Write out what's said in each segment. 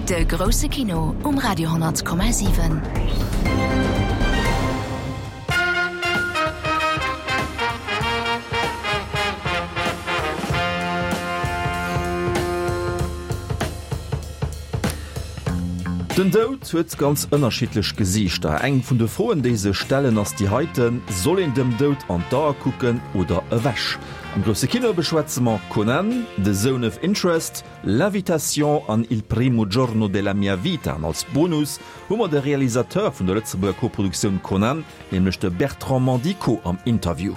De grousse Kino um Radio 10,7. Den Doud huet ganz ënnerschiddlech Gesiichter. Eng vun de Froen, déi sech stellen, ass déi heiten, Soll een dem Doud an d'Ae kucken oder ewech? Am grousse Kino beschwätze mer Conan, The Zone of Interest, L'Invitation an Il primo giorno della mia vita. An als Bonus hu mer de Realisateur vun der Lëtzebuerger Koproduktioun Conan, nämlech de Bertrand Mandico am Interview.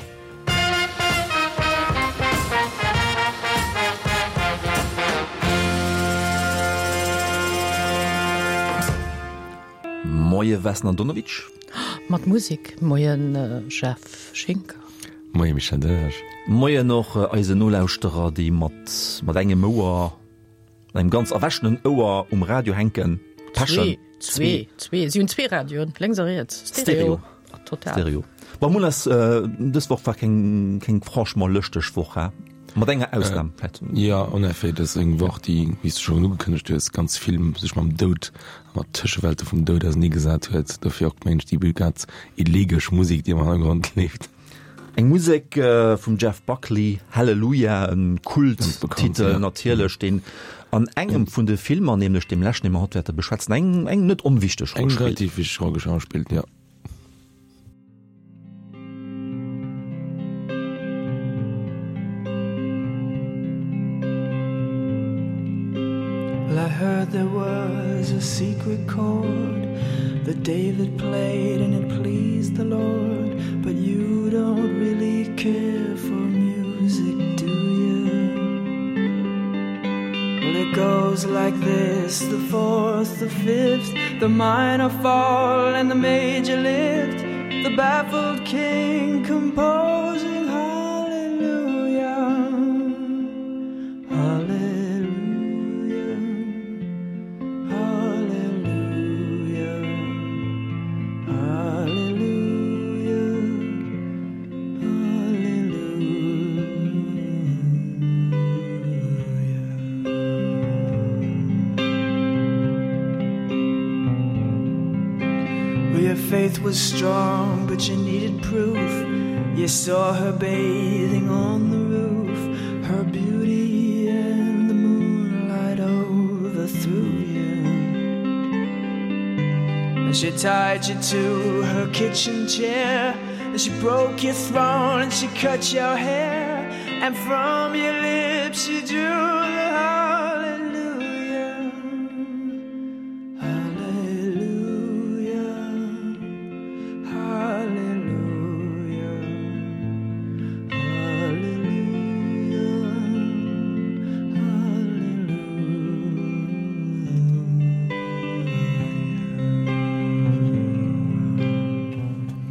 Moie Vesna Andonovic. Mat Musek. Moien Jeff Schinker. Moie Michel Delage. Moien och eisen Nolauschterer, déi mat mat engem Ouer, mat engem ganz erwächenen Ouer um Radio hänken. Pechen. Zwee, zwee, si hunn zwee Radioen, lénks a riets. Stereo. Total. Stereo. Bon, Mol ass dës Woch war keng keng franchement lëschteg Woch, he? Mat enger Ausnam vläicht. Jo, en effet, dat ass eng Woch, déi, wéi s de schonn ugekënnegt hues, ganz vill sech mam Doud a mat Tëschewelte vum Doud auserneegesat huet. Dofir och, mengen ech, déi ganz elegesch Musek, déi am Hannergrond leeft. Eng Musek vum Jeff Buckley, Hallelujah, e Kulttitel natierlech, deen an engem vun de Filmer, nämlech deem leschten, dee mer haut wäerte beschwätzen, eng eng net onwichteg Roll spillt. Eng relativ wichteg Roll spillt, jo. Well I heard there was a secret chord that David played and it pleased the Lord but you don't really care for music do you Well it goes like this the fourth the fifth the minor fall and the major lift the baffled king composing hallelujah hallelujah hallelujah hallelujah Well, your faith was strong, but you needed proof. You saw her bathing on the roof, her beauty and the moonlight overthrew you. And she tied you to her kitchen chair, and she broke your throne and she cut your hair, and from your lips she drew the hallelujah. Hallelujah. Hallelujah. Hallelujah.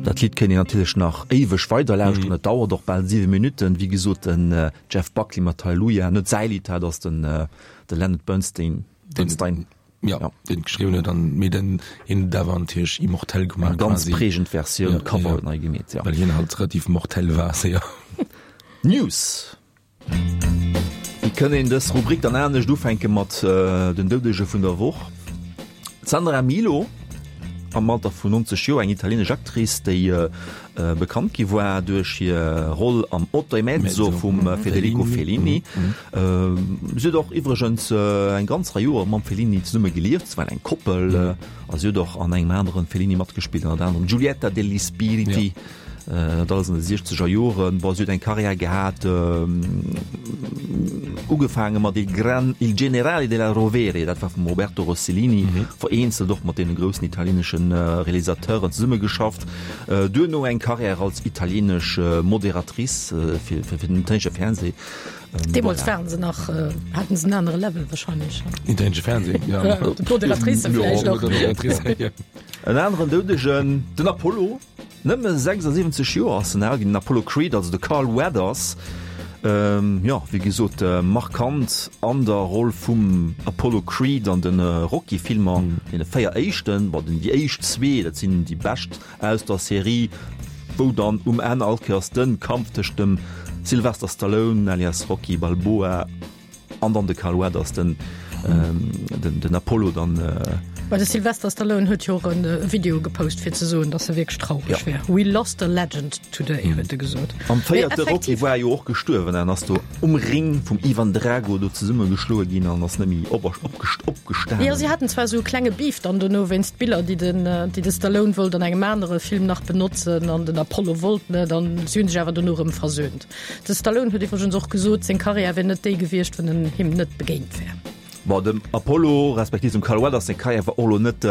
Dat Lidd kéint een natierlech nach éiweg weider lauschteren. Et dauert och bal 7 Minutten. Wéi gesot, den Jeff Buckley mat Hallelujah, net säi Lidd, dat ass den de Leonard Bernstein. Bernstein. Ja, ja. den geschrieben huet an mee den hien huet awer natierlech immortell gemaach. Eng ganz prägend Versioun, ja, Cover ja. nei gemeet, ja. Well hien halt relativ mortell war, séier. News. Wéi kënn een dës Rubrik dann anescht ufänke mat den Doudege vun der Woch? D'Sandra Milo, am Alter vun 90 Joer, eng italienesch Actrice, déi bekannt gi war duerch hir Roll am Otto e mezzo vum Federico Fellini. Si huet och iwwregens eng ganz Rei Joer mam Fellini zesumme gelieft, se waren eng Koppel, a si huet och an engem anere Fellini matgespillt, ënnert anerem Giulietta degli Spiriti. Dat alles an de siechzeger Joren. Bon, si huet eng Karriär gehat, ugefaange mat Il Gran, Il Generale della Rovere, dat war vum Roberto Rossellini, vereenzelt och mat deene groussen italieenesche Realisateuren zesummegeschafft. Duerno eng Karriär als italieenesch Moderatrice fir fir den italieenesche Fernseh. Deemools waren se nach, haten se en anere Level wahrscheinlech. Italieenesche Fernseh, ja. D'Moderatrice vläicht och. En aneren Doudegen, den Apollo. Nëmme 76 Joer ass en al ginn, den Apollo Creed, also de Carl Weathers. Jo, wéi gesot, markant an der Roll vum Apollo Creed an de Rocky-Filmer, deene 4 éischten, bon, déi éischt zwee, dat sinn déi bescht aus der Serie, wou dann um Enn all Kéiers de Kampf tëscht dem Sylvester Stallone alias Rocky Balboa. An dann de Carl Weathers, den, den, den Apollo dann. Well de Sylvester Stallone huet jo och e Video gepost fir ze soen, datt e wierklech traureg wär. We lost a legend today, huet e gesot. Am véierte Rocky war e jo och gestuerwen an ass do um Ring vum Ivan Drago do zesummegeschloe ginn an ass net méi opgestanen. Jo, si haten zwar esou e klenge Beef dann dono wéinst Biller, déi den, déi de Stallone wollt an engem anere Film nach benotzen an den Apollo wollt net an si hunn sech awer dono erëm versöhnt. De Stallone huet iwwregens och gesot, seng Karriär wier net déi gewiescht, wann en him net begéint wär. Bon, dem Apollo respektiv dem Carl Weathers seng Karriär war och elo net,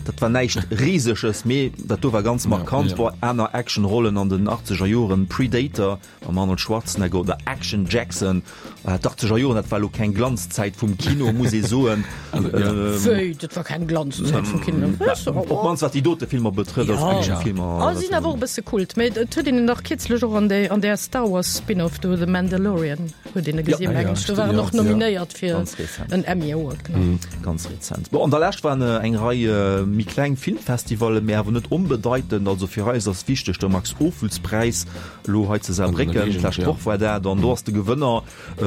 dat war näischt Riseges, mee dat do war ganz markant. Bon, aner Actionrollen an den achtzeger Joren, Predator mam Arnold Schwarzenegger oder Action Jackson, D'Achtzeger Joren, dat war elo keng Glanzzäit vum Kino, muss ee soen. Wéi, dat war keng Glanzzäit vum Kino? Op d'mannst wat déi dote Filmer betrëfft, als Actionfilmer. Oh, si sinn awer och e bësse Kult. Mee et huet een en dach kierzlech och an déi, an där Star Wars Spin-off do, The Mandalorian, huet een e gesinn, mengen ech. Do war en och nominéiert fir en Emmy Award, genau. Ganz rezent. Bon, an der Lescht waren eng Rei méi kleng Filmfestivallen, mee awer net onbedeitend. Also fir eis ass wichteg de Max-Ophüls-Präis, Elo hei zu Saarbrécken, d'lescht Woch war dat, an do ass de Gewënner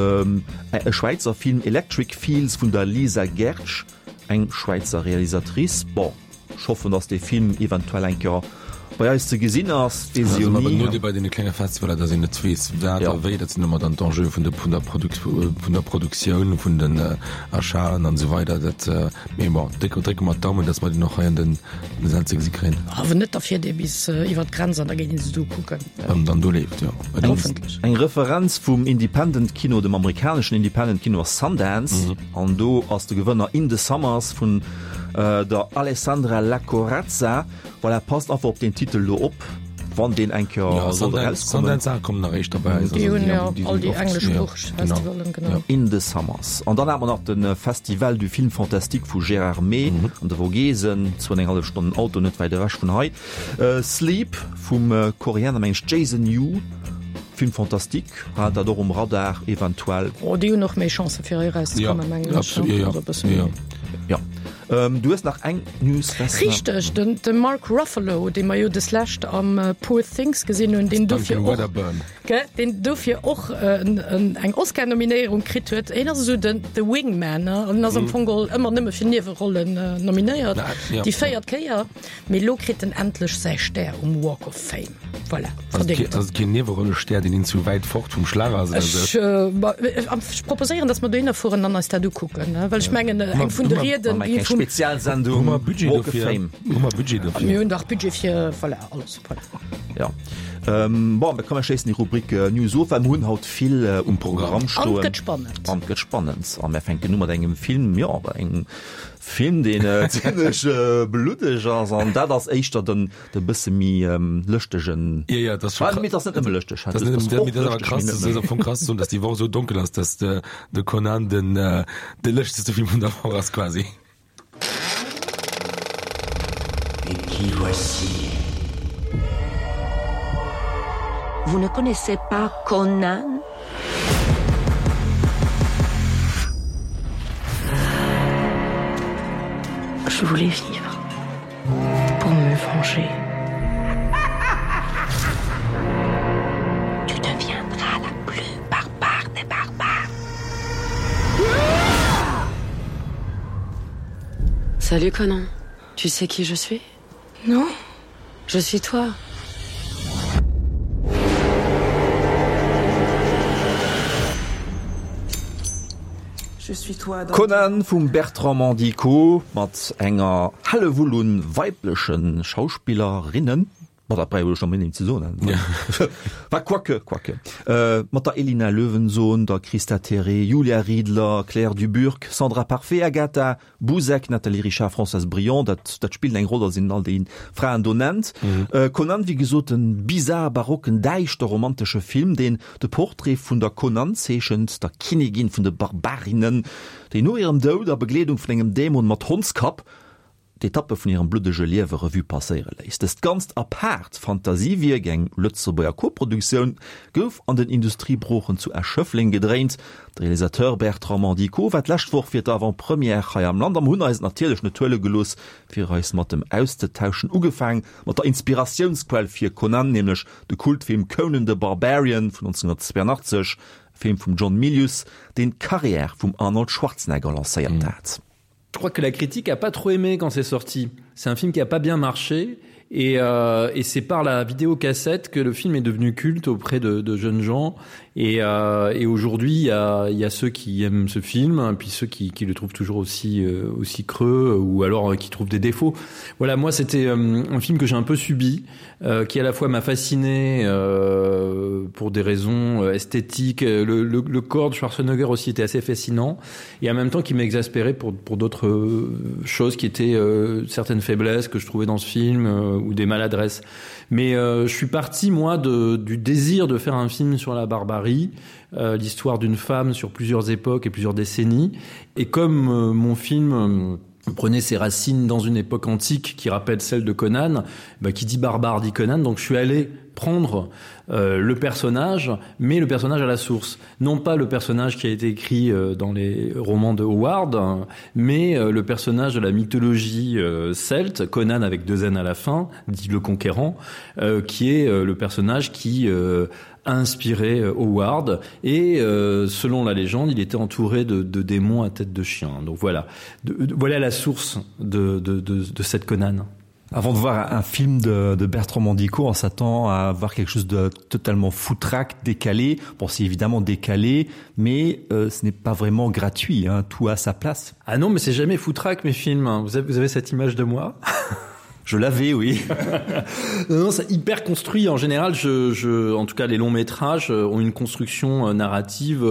e Schwäizer Film, Electric Fields vun der Lisa Gertsch, eng Schwäizer Realisatrice. Bon, ech hoffen, datt dee Film eventuell eng Kéier bei eis ze gesinn ass, weess ech jo ni. Nodeel bei deene klenge Festivaler, datt een net weess, wat a wéi. Dat sinn ëmmer dann d'Enjeue vun der vun der Produktioun, vun den Achaten an esou weider. Dat, mee bon, drécke mer d'Daumen, datt mer deen och hei an den Säll ze gesi kréien. Awer net, da fiert ee bis iwwer d'Grenz an da geet een se do kucken. Wann en dann do leeft, jo. Hoffentlech. Eng Referenz vum Independent Kino, dem amerikaneschen Independent Kino ass Sundance. An do ass de Gewënner In the Summers vun der Alessandra Lacorazza. Voilà, passt einfach op deen Titel do op, wann deen eng Kéier sollt erauskommen. Sundance a kommen nach éischter bei eis. Déi hunn jo all déi engleschsproocheg Festivalen, genau. In the Summers. An dann hat mer nach de Festival du Film Fantastique vu Gérardmer an de Vogesen, zwou an eng hallef Stonnen Auto, net wäit ewech vun hei. Sleep vum Koreaner, meng ech, Jason Yu, Film fantastique, hat dat och um Radar eventuell. Oh, déi hunn och méi Chancen fir hei erauszekommen, mengen ech. Jo, absolut, jo. Du hues nach eng News, Vesna. Richteg, de Mark Ruffalo, dee mer jo deslescht am Poor Things gesinn hunn, deen dofir och, gell, deen dofir och eng Oscar-Nominéierung kritt huet. Hien ass esou den the Wingman, ne, an ass am Fong geholl ëmmer nëmme fir Niewerollen nominéiert, déi véiert Kéier. Mee elo kritt en endlech säi Stär um Walk of Fame. Voilà, verdéngt. Ass et keen Niewerollen-Stär, deen een zu wäit fort vum Schlag ass oder sou? Ech proposéieren, dass mer dohinner fueren an eis dat ukucken, well ech mengen, eng vun de Rieden, déi vum. Spezialsendung Hu mer Budget Walk of dofir? Fame. Hu mer Budget dofir? Mir hunn dach Budget fir, voilà, alles. Voilà. Ja. Bon, da komm mer schléissen déi Rubrik News of, well mer hunn haut vill um Programm An stoen. et gëtt spannend. An et gëtt spannend. A mer fänken u mat engem Film, jo, engem Film deen zimlech bluddeg ass an dat ass éischter den de bësse méi lëschtegen. Jo jo, dat ass scho. Mee dat ass net nëmme lëschteg. Dat ass net nëmme, mee dat ass awer krass, dat ass am Fong krass ze soen, datt déi Woch esou donkel ass, datt de de Conan den de lëschtegste Film vun der Woch ass quasi. Et qui voici? Vous ne connaissez pas Conan? Je voulais vivre pour me venger. Tu deviendras la plus barbare des barbares. Salut Conan, tu sais qui je suis? Non? Je suis toi. Conan vum Bertrand Mandico mat enger Hellewull un weibleche Schauspillerinnen, bon dat brauch ech net méi ze soen, wa quoique, quoique, mat der Elina Löwensohn, der Christa Theré, Julia Riedler, Claire Duburcq, Sandra Parfait, Agatha Buzek, Nathalie Richard, Françoise Brion, dat dat spillt eng Roll, datt een all déi Fraen do nennt. Conan, wéi gesot, en bizar barocken, däischter romantesche Film, deen de Portrait vun der Conan zeechent, der Kinnigin vun de Barbarinnen, déi no hirem Doud a Begleedung vun engem Dämon mat Hondskapp d'Etappe vun hirem bluddege Liewe Revue passéiere léisst. Dëst ganzt apaart Fantasiewierk, eng Lëtzebuerger Koproduktioun, gouf an den Industriebroochen zu Esch-Schëffleng gedréint. De Realisateur Bertrand Mandico war d'lescht Woch fir d'Avant-Première hei am Land a mer hunn eis et natierlech net huele gelooss, fir eis mat em auszetauschen. Ugefaang mat der Inspiratiounsquell fir Conan, nämlech de Kultfilm Conan the Barbarian vun 1982. Film vum John Milius, deen d'Karriär vum Arnold Schwarzenegger lancéiert hat. Je crois que la critique a pas trop aimé quand c'est sorti. C'est un film qui a pas bien marché et, euh, et c'est par la vidéocassette que le film est devenu culte auprès de, de jeunes gens et, euh, et aujourd'hui il y a, y a ceux qui aiment ce film puis ceux qui, qui le trouvent toujours aussi euh, aussi creux ou alors euh, qui trouvent des défauts. Voilà moi c'était euh, un film que j'ai un peu subi euh, qui à la fois m'a fasciné euh, pour des raisons euh, esthétiques le, le, le corps de Schwarzenegger aussi était assez fascinant et en même temps qui m'exaspérait pour, pour d'autres euh, choses qui étaient euh, certaines faiblesses que je trouvais dans ce film euh, ou des maladresses. Mais euh, je suis parti moi de, du désir de faire un film sur la barbarie, euh, l'histoire d'une femme sur plusieurs époques et plusieurs décennies et comme euh, mon film euh, prenait ses racines dans une époque antique qui rappelle celle de Conan, bah, qui dit barbare dit Conan, donc je suis allé prendre euh, le personnage, mais le personnage à la source. Non pas le personnage qui a été écrit euh, dans les romans de Howard, hein, mais euh, le personnage de la mythologie euh, celte, Conan avec deux N à la fin, dit le conquérant, euh, qui est euh, le personnage qui euh, inspiré euh, Howard et euh, selon la légende il était entouré de, de démons à tête de chien donc voilà de, de, voilà la source de, de, de, de cette Conan. Avant de voir un film de, de Bertrand Mandico, on s'attend à voir quelque chose de totalement foutraque, décalé. Bon, c'est évidemment décalé, mais euh, ce n'est pas vraiment gratuit, hein, tout à sa place. Ah non, mais c'est jamais foutraque mes films. Vous avez, vous avez cette image de moi Je l'avais, oui. non, non, c'est hyper construit. En général, je, je, en tout cas, les longs métrages euh, ont une construction euh, narrative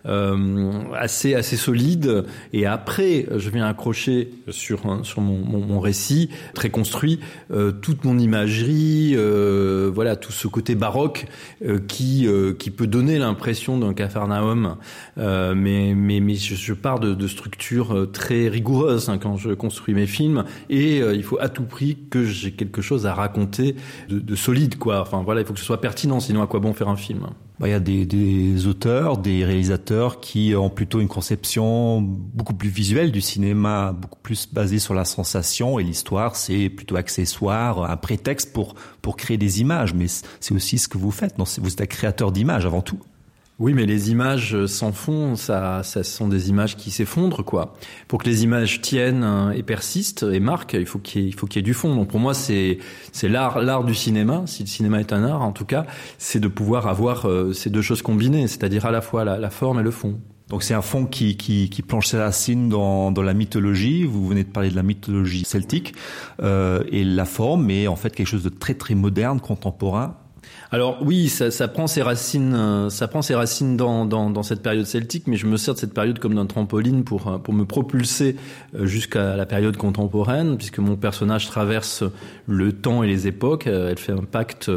euh, assez, assez solide. Et après, je viens accrocher sur, sur mon, mon, mon récit très construit euh, toute mon imagerie, euh, voilà, tout ce côté baroque euh, qui, euh, qui peut donner l'impression d'un capharnaüm. Euh, mais mais, mais je, je pars de, de structures euh, très rigoureuses hein, quand je construis mes films. Et euh, il faut à tout prix que j'ai quelque chose à raconter de, de solide quoi enfin voilà il faut que ce soit pertinent sinon à quoi bon faire un film bah, il y a des, des auteurs des réalisateurs qui ont plutôt une conception beaucoup plus visuelle du cinéma beaucoup plus basée sur la sensation et l'histoire c'est plutôt accessoire un prétexte pour pour créer des images mais c'est aussi ce que vous faites non vous êtes un créateur d'images avant tout Oui, mais les images euh, sans fond, ça, ça sont des images qui s'effondrent quoi. Pour que les images tiennent euh, et persistent et marquent, il faut qu'il y, ait, qu y ait du fond. Donc pour moi, c'est l'art l'art du cinéma, si le cinéma est un art en tout cas, c'est de pouvoir avoir euh, ces deux choses combinées, c'est-à-dire à la fois la, la forme et le fond. Donc c'est un fond qui, qui, qui plonge ses racines dans, dans la mythologie. Vous venez de parler de la mythologie celtique euh, et la forme est en fait quelque chose de très très moderne, contemporain. Alors oui, ça, ça prend ses racines, euh, ça prend ses racines dans, dans, dans cette période celtique, mais je me sers de cette période comme d'un trampoline pour, euh, pour me propulser euh, jusqu'à la période contemporaine, puisque mon personnage traverse le temps et les époques. Elle fait un pacte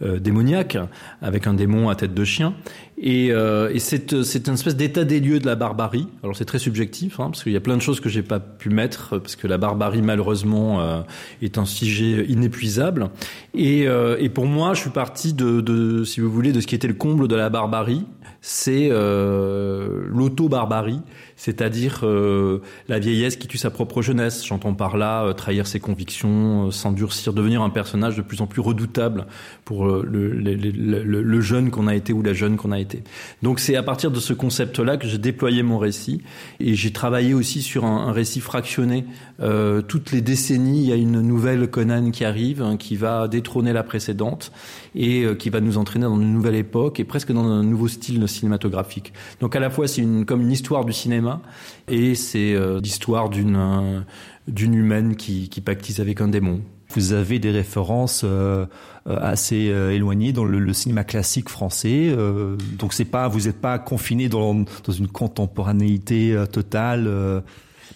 démoniaque avec un démon à tête de chien. Et, euh, et c'est une espèce d'état des lieux de la barbarie. Alors c'est très subjectif, hein, parce qu'il y a plein de choses que j'ai pas pu mettre, parce que la barbarie malheureusement euh, est un sujet inépuisable. Et, euh, et pour moi, je suis parti de, de, si vous voulez, de ce qui était le comble de la barbarie, c'est euh, l'auto-barbarie, c'est-à-dire euh, la vieillesse qui tue sa propre jeunesse. J'entends par là euh, trahir ses convictions, euh, s'endurcir, devenir un personnage de plus en plus redoutable pour euh, le, le, le, le jeune qu'on a été ou la jeune qu'on a été. Donc c'est à partir de ce concept-là que j'ai déployé mon récit et j'ai travaillé aussi sur un, un récit fractionné. Euh, toutes les décennies, il y a une nouvelle Conan qui arrive, hein, qui va détrôner la précédente et euh, qui va nous entraîner dans une nouvelle époque et presque dans un nouveau style cinématographique. Donc à la fois c'est une, comme une histoire du cinéma et c'est euh, l'histoire d'une euh, d'une humaine qui, qui pactise avec un démon. Vous avez des références euh, euh, assez euh, éloignées dans le, le cinéma classique français. Euh, donc c'est pas vous n'êtes pas confiné dans, dans une contemporanéité euh, totale. Euh.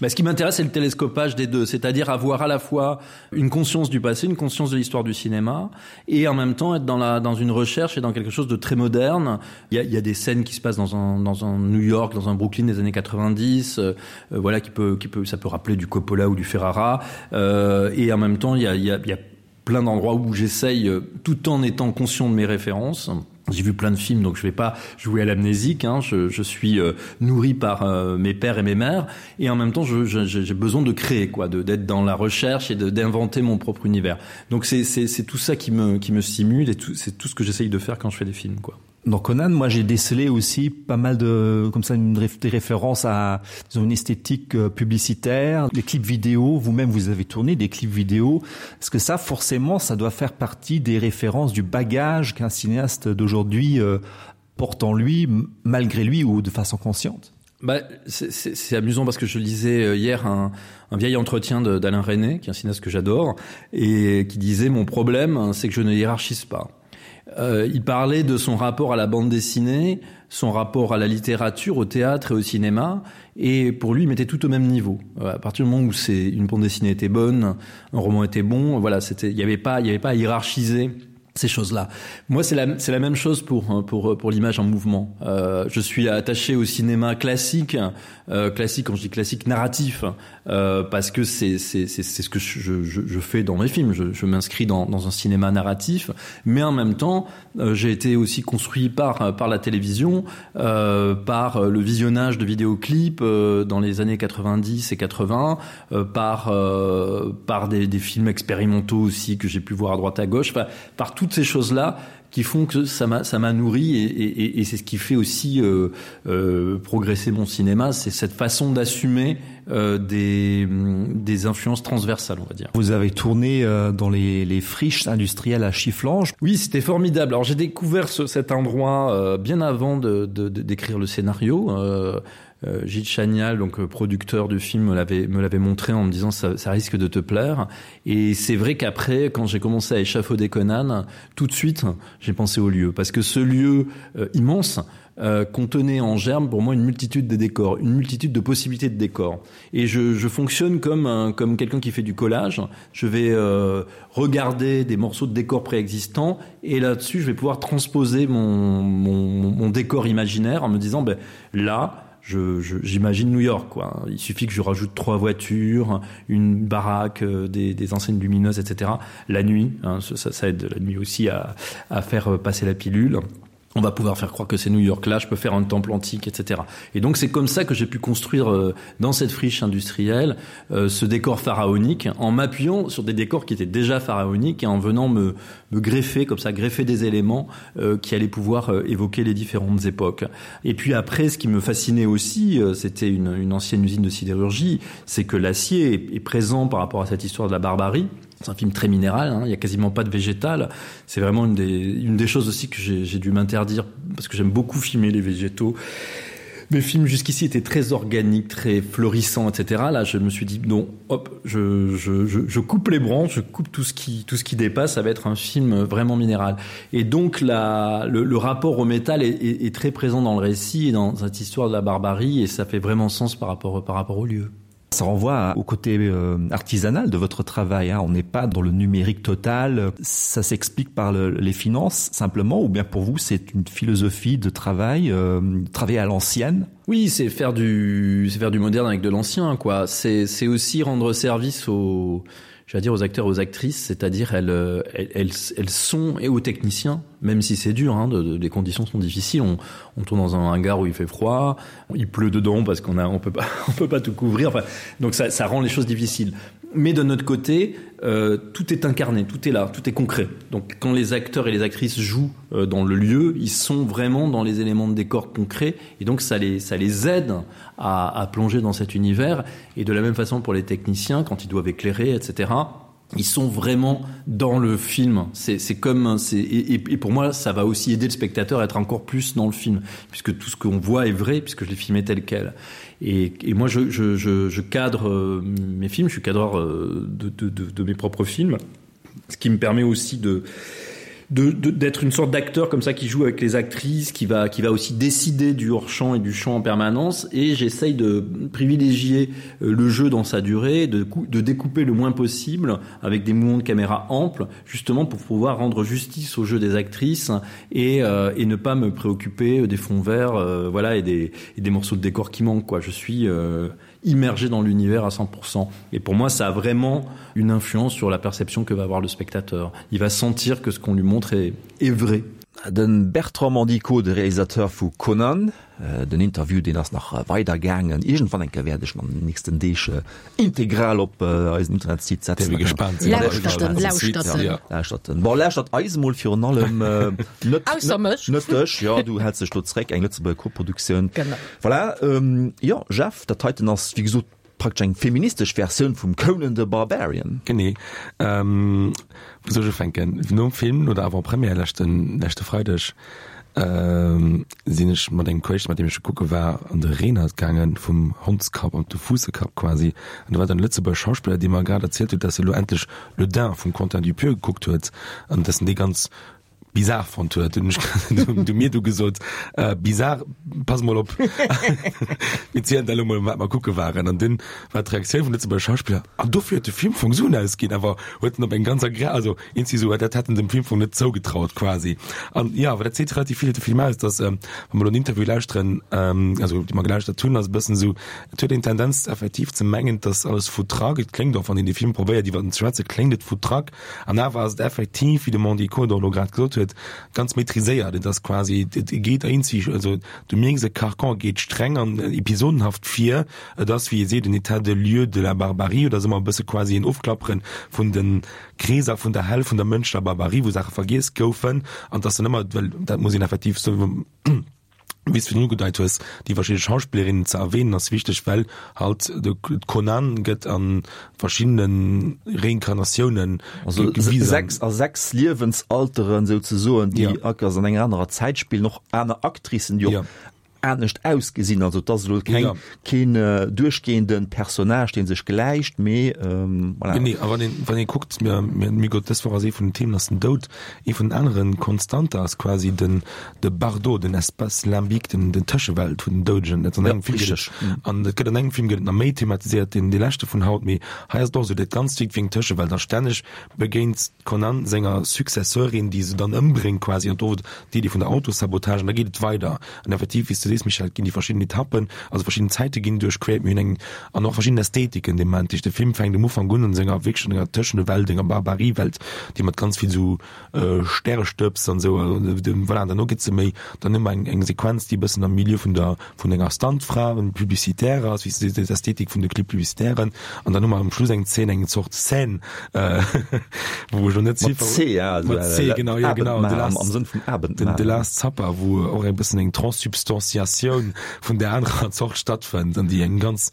Mais ce qui m'intéresse, c'est le télescopage des deux, c'est-à-dire avoir à la fois une conscience du passé, une conscience de l'histoire du cinéma, et en même temps être dans, la, dans une recherche et dans quelque chose de très moderne. Il y a, il y a des scènes qui se passent dans un, dans un New York, dans un Brooklyn des années 90, euh, euh, voilà, qui peut, qui peut, ça peut rappeler du Coppola ou du Ferrara, euh, et en même temps, il y a, il y a, il y a plein d'endroits où j'essaye, euh, tout en étant conscient de mes références, J'ai vu plein de films, donc je vais pas jouer à l'amnésique. Hein. Je, je suis euh, nourri par euh, mes pères et mes mères, et en même temps, j'ai besoin de créer, quoi, d'être dans la recherche et d'inventer mon propre univers. Donc c'est tout ça qui me, qui me stimule et c'est tout ce que j'essaye de faire quand je fais des films, quoi. Dans Conan, moi j'ai décelé aussi pas mal de comme ça une des références à disons, une esthétique euh, publicitaire, les clips vidéo, vous-même vous avez tourné des clips vidéo. Est-ce que ça forcément ça doit faire partie des références du bagage qu'un cinéaste d'aujourd'hui euh, porte en lui malgré lui ou de façon consciente? Bah, c'est amusant parce que je lisais euh, hier un, un vieil entretien d'Alain René, qui est un cinéaste que j'adore, et qui disait mon problème, c'est que je ne hiérarchise pas. Euh, il parlait de son rapport à la bande dessinée, son rapport à la littérature, au théâtre et au cinéma, et pour lui, il mettait tout au même niveau. Euh, à partir du moment où c'est une bande dessinée était bonne, un roman était bon, voilà, c'était, il n'y avait pas, il n'y avait pas à hiérarchiser ces choses-là. Moi, c'est la, la même chose pour, pour, pour l'image en mouvement. Euh, je suis attaché au cinéma classique, euh, classique, quand je dis classique, narratif, euh, parce que c'est ce que je, je, je fais dans mes films. Je, je m'inscris dans, dans un cinéma narratif, mais en même temps, euh, j'ai été aussi construit par, par la télévision, euh, par le visionnage de vidéoclips euh, dans les années 90 et 80, euh, par, euh, par des, des films expérimentaux aussi que j'ai pu voir à droite à gauche, enfin, par toutes ces choses-là qui font que ça m'a ça m'a nourri et, et, et c'est ce qui fait aussi euh, euh, progresser mon cinéma, c'est cette façon d'assumer euh, des, des influences transversales, on va dire. Vous avez tourné euh, dans les, les friches industrielles à Chifflange. Oui, c'était formidable. Alors j'ai découvert ce, cet endroit euh, bien avant de, de, de, d'écrire le scénario. Euh, Euh, Gilles Chanial, donc euh, producteur du film, me l'avait me l'avait montré en me disant ça, ça risque de te plaire. Et c'est vrai qu'après, quand j'ai commencé à échafauder Conan, tout de suite, j'ai pensé au lieu parce que ce lieu euh, immense, euh, contenait en germe pour moi une multitude de décors, une multitude de possibilités de décors. Et je, je fonctionne comme, un, comme quelqu'un qui fait du collage. Je vais euh, regarder des morceaux de décors préexistants et là-dessus, je vais pouvoir transposer mon, mon, mon décor imaginaire en me disant ben, là, j'imagine New York quoi. Il suffit que je rajoute trois voitures, une baraque, euh, des, des enseignes lumineuses, etc. La nuit, hein, ça, ça aide la nuit aussi à, à faire euh, passer la pilule on va pouvoir faire croire que c'est New York là, je peux faire un temple antique, etc. Et donc c'est comme ça que j'ai pu construire euh, dans cette friche industrielle euh, ce décor pharaonique en m'appuyant sur des décors qui étaient déjà pharaoniques et en venant me, me greffer comme ça, greffer des éléments euh, qui allaient pouvoir euh, évoquer les différentes époques. Et puis après, ce qui me fascinait aussi, euh, c'était une, une ancienne usine de sidérurgie, c'est que l'acier est, est présent par rapport à cette histoire de la barbarie. C'est un film très minéral, hein, il n'y a quasiment pas de végétal. C'est vraiment une des, une des choses aussi que j'ai dû m'interdire parce que j'aime beaucoup filmer les végétaux. Mes films jusqu'ici étaient très organiques, très florissants, etc. Là, je me suis dit non, hop, je, je, je, je coupe les branches, je coupe tout ce qui, tout ce qui dépasse, ça va être un film vraiment minéral. Et donc la, le, le rapport au métal est, est, est très présent dans le récit et dans cette histoire de la barbarie et ça fait vraiment sens par rapport, par rapport au lieu. Ça renvoie au côté euh, artisanal de votre travail. Hein. On n'est pas dans le numérique total. Ça s'explique par le, les finances simplement ou bien pour vous c'est une philosophie de travail, euh, travailler à l'ancienne. Oui, c'est faire du c'est faire du moderne avec de l'ancien quoi. C'est aussi rendre service aux j'allais dire aux acteurs aux actrices, c'est-à-dire elles, euh, elles, elles, elles sont et aux techniciens, même si c'est dur hein, de, de, les conditions sont difficiles, on, on tourne dans un hangar où il fait froid, il pleut dedans parce qu'on a on peut pas on peut pas tout couvrir enfin, donc ça, ça rend les choses difficiles. Mais de notre côté, euh, tout est incarné, tout est là, tout est concret. Donc quand les acteurs et les actrices jouent euh, dans le lieu, ils sont vraiment dans les éléments de décor concrets et donc ça les, ça les aide à, à plonger dans cet univers. Et de la même façon pour les techniciens, quand ils doivent éclairer, etc., ils sont vraiment dans le film. C'est comme c'est et, et pour moi ça va aussi aider le spectateur à être encore plus dans le film puisque tout ce qu'on voit est vrai puisque je l'ai filmé tel quel. Et, et moi je, je, je, je cadre euh, mes films, je suis cadreur euh, de, de, de, de mes propres films, ce qui me permet aussi de d'être une sorte d'acteur comme ça qui joue avec les actrices qui va qui va aussi décider du hors champ et du champ en permanence et j'essaye de privilégier euh, le jeu dans sa durée de de découper le moins possible avec des mouvements de caméra amples justement pour pouvoir rendre justice au jeu des actrices et, euh, et ne pas me préoccuper des fonds verts euh, voilà et des, et des morceaux de décor qui manquent quoi je suis euh, immergé dans l'univers à 100%. Et pour moi, ça a vraiment une influence sur la perception que va avoir le spectateur. Il va sentir que ce qu'on lui montre est, est vrai. De Bertrand Mandico, de Realisateur vu Conan, den Interview deen ass nach weider gaangen. Iergendwann eng Kéier wäert ech en an den nächsten Deeg integral op eisen Internetsite setzen. Däerf ee gespaant sinn. Lauschtert en, lauschtert en. Lauschtert en. Bon, lauschtert eis emol virun allem, net, Ausser mech. net dech, jo, du häls dech do zréck, eng Lëtzebuerger Koproduktioun. Genau. Voilà, jo, Jeff, dat heiten ass wéi gesot Praktesch eng feministesch Versioun vum Conan the Barbarian. Genee. Wou soll ech ufänken? Nom Film, no der Avant-Première leschten, leschte Freideg, sinn ech mat engem Kolleg, mat deem ech kucke war, an de Renert gaangen, vum Hondskapp an de Fuussekapp quasi. An do war dann e Lëtzebuerger Schauspiller, dee mer grad erzielt huet, dass e lo endlech Le Dain vum Quentin Dupieux gekuckt huet an dass en dee ganz bizar fonnt huet. Hunn ech du mir du gesot, äh, bizar, pass mol op. Mir zielen der elo mol, wat mer kucke waren. An dunn war d'Reaktioun vum Lëtzebuerger Schauspiller, an dofir huet de Film Fong Suen ausginn, awer huet en op eng ganz agréabel, also eenzi sou, dat hätt en dem Film Fong net zougetraut quasi. An jo, awer dat seet relativ vill iwwer de Film aus, dass, wa mer elo en Interview lauschteren, also déi mer gelauschtert hunn, ass e bëssen esou, et huet een d'Tendenz effektiv ze mengen, dass alles foutraque, et kléngt och, wann een dee Film probéiert iwwer en ze schwätzen, kléngt et foutraque, An awer ass et effektiv, wéi de Mandy Codor elo grad gesot huet, ganz maîtriséiert. Et ass quasi, et geet eenzeg, also du mierks, e Carcan geet streng an episodenhaft vir. Et ass, wéi ee seet, en État de lieu de la barbarie oder ass ëmmer e bësse quasi en Ofklappere vun de Kreeser vun der Hell, vun der mënschlecher Barbarie, wou Saache vergiess goufen. An et ass dann ëmmer, well dat muss een effektiv soen, wéi s du virdrun ugedeit hues, déi verschidde Schauspillerinnen ze erwähnen ass wichteg, well halt de Conan gëtt a verschiddene Reinkarnatiounen Also gewisen. 6 a 6 Liewensalteren souzesoen, déi ja. Akers an enger anerer Zäit spillen, och aner Actricen, déi och ja. anescht ausgesinn. Also et ass elo keng, ja. keen äh, duerchgehenden Personnage, deen sech gläicht, mee ähm, voilà. Genee, a wann een, wann ee kuckt, mir, mir, mir gott, dës Woch ass ee vun den Themen ass den Doud. Ee vun den aneren Konstanter ass quasi den de Bardo, den Espace limbique, den, den Tëschewelt vun den Doudegen. Dat an engem Film gëtt et, an et gëtt an engem Film gëtt et nach méi thematiséiert, deen dee leschte vun haut, mee hei ass et och esou, dat Ganzt wierkt wéi eng Tëschewelt a stänneg begéint d'Conan senger Successeurin, déi se dann ëmbréngt quasi, an do d'Iddi vun der Autosabotage, an da geet et weider. An effektiv, wéi s du sees, Michèle, et ginn déi verschidden Etappen, also verschidden Zäite ginn duerchquert, mir hunn eng, an och verschidden Ästhetiken dee Moment. De Film fänkt um Ufank un an senger wierklech an enger Tëschenewelt, enger Barbariewelt, déi mat ganz vill esou Stärestëbs an esou, voilà, an derno gëtt se méi, dann hu mer eng eng Sequenz, déi e bëssen am Milieu vun der vun enger Stuntfra, en Publicitaire ass, wéi s de sees, d'Ästhetik vun de Clip-publicitairen, an dann hu mer um Schluss eng Zeen, eng Zort Scène, wou ech elo net Mat C, ja, also mat C, genau, ja, genau, The Last, am Sënn vum Abendmahl. Den The Last Supper, wou och e bëssen eng Transsubstantiatioun vun där anerer Zort stattfënnt an déi eng ganz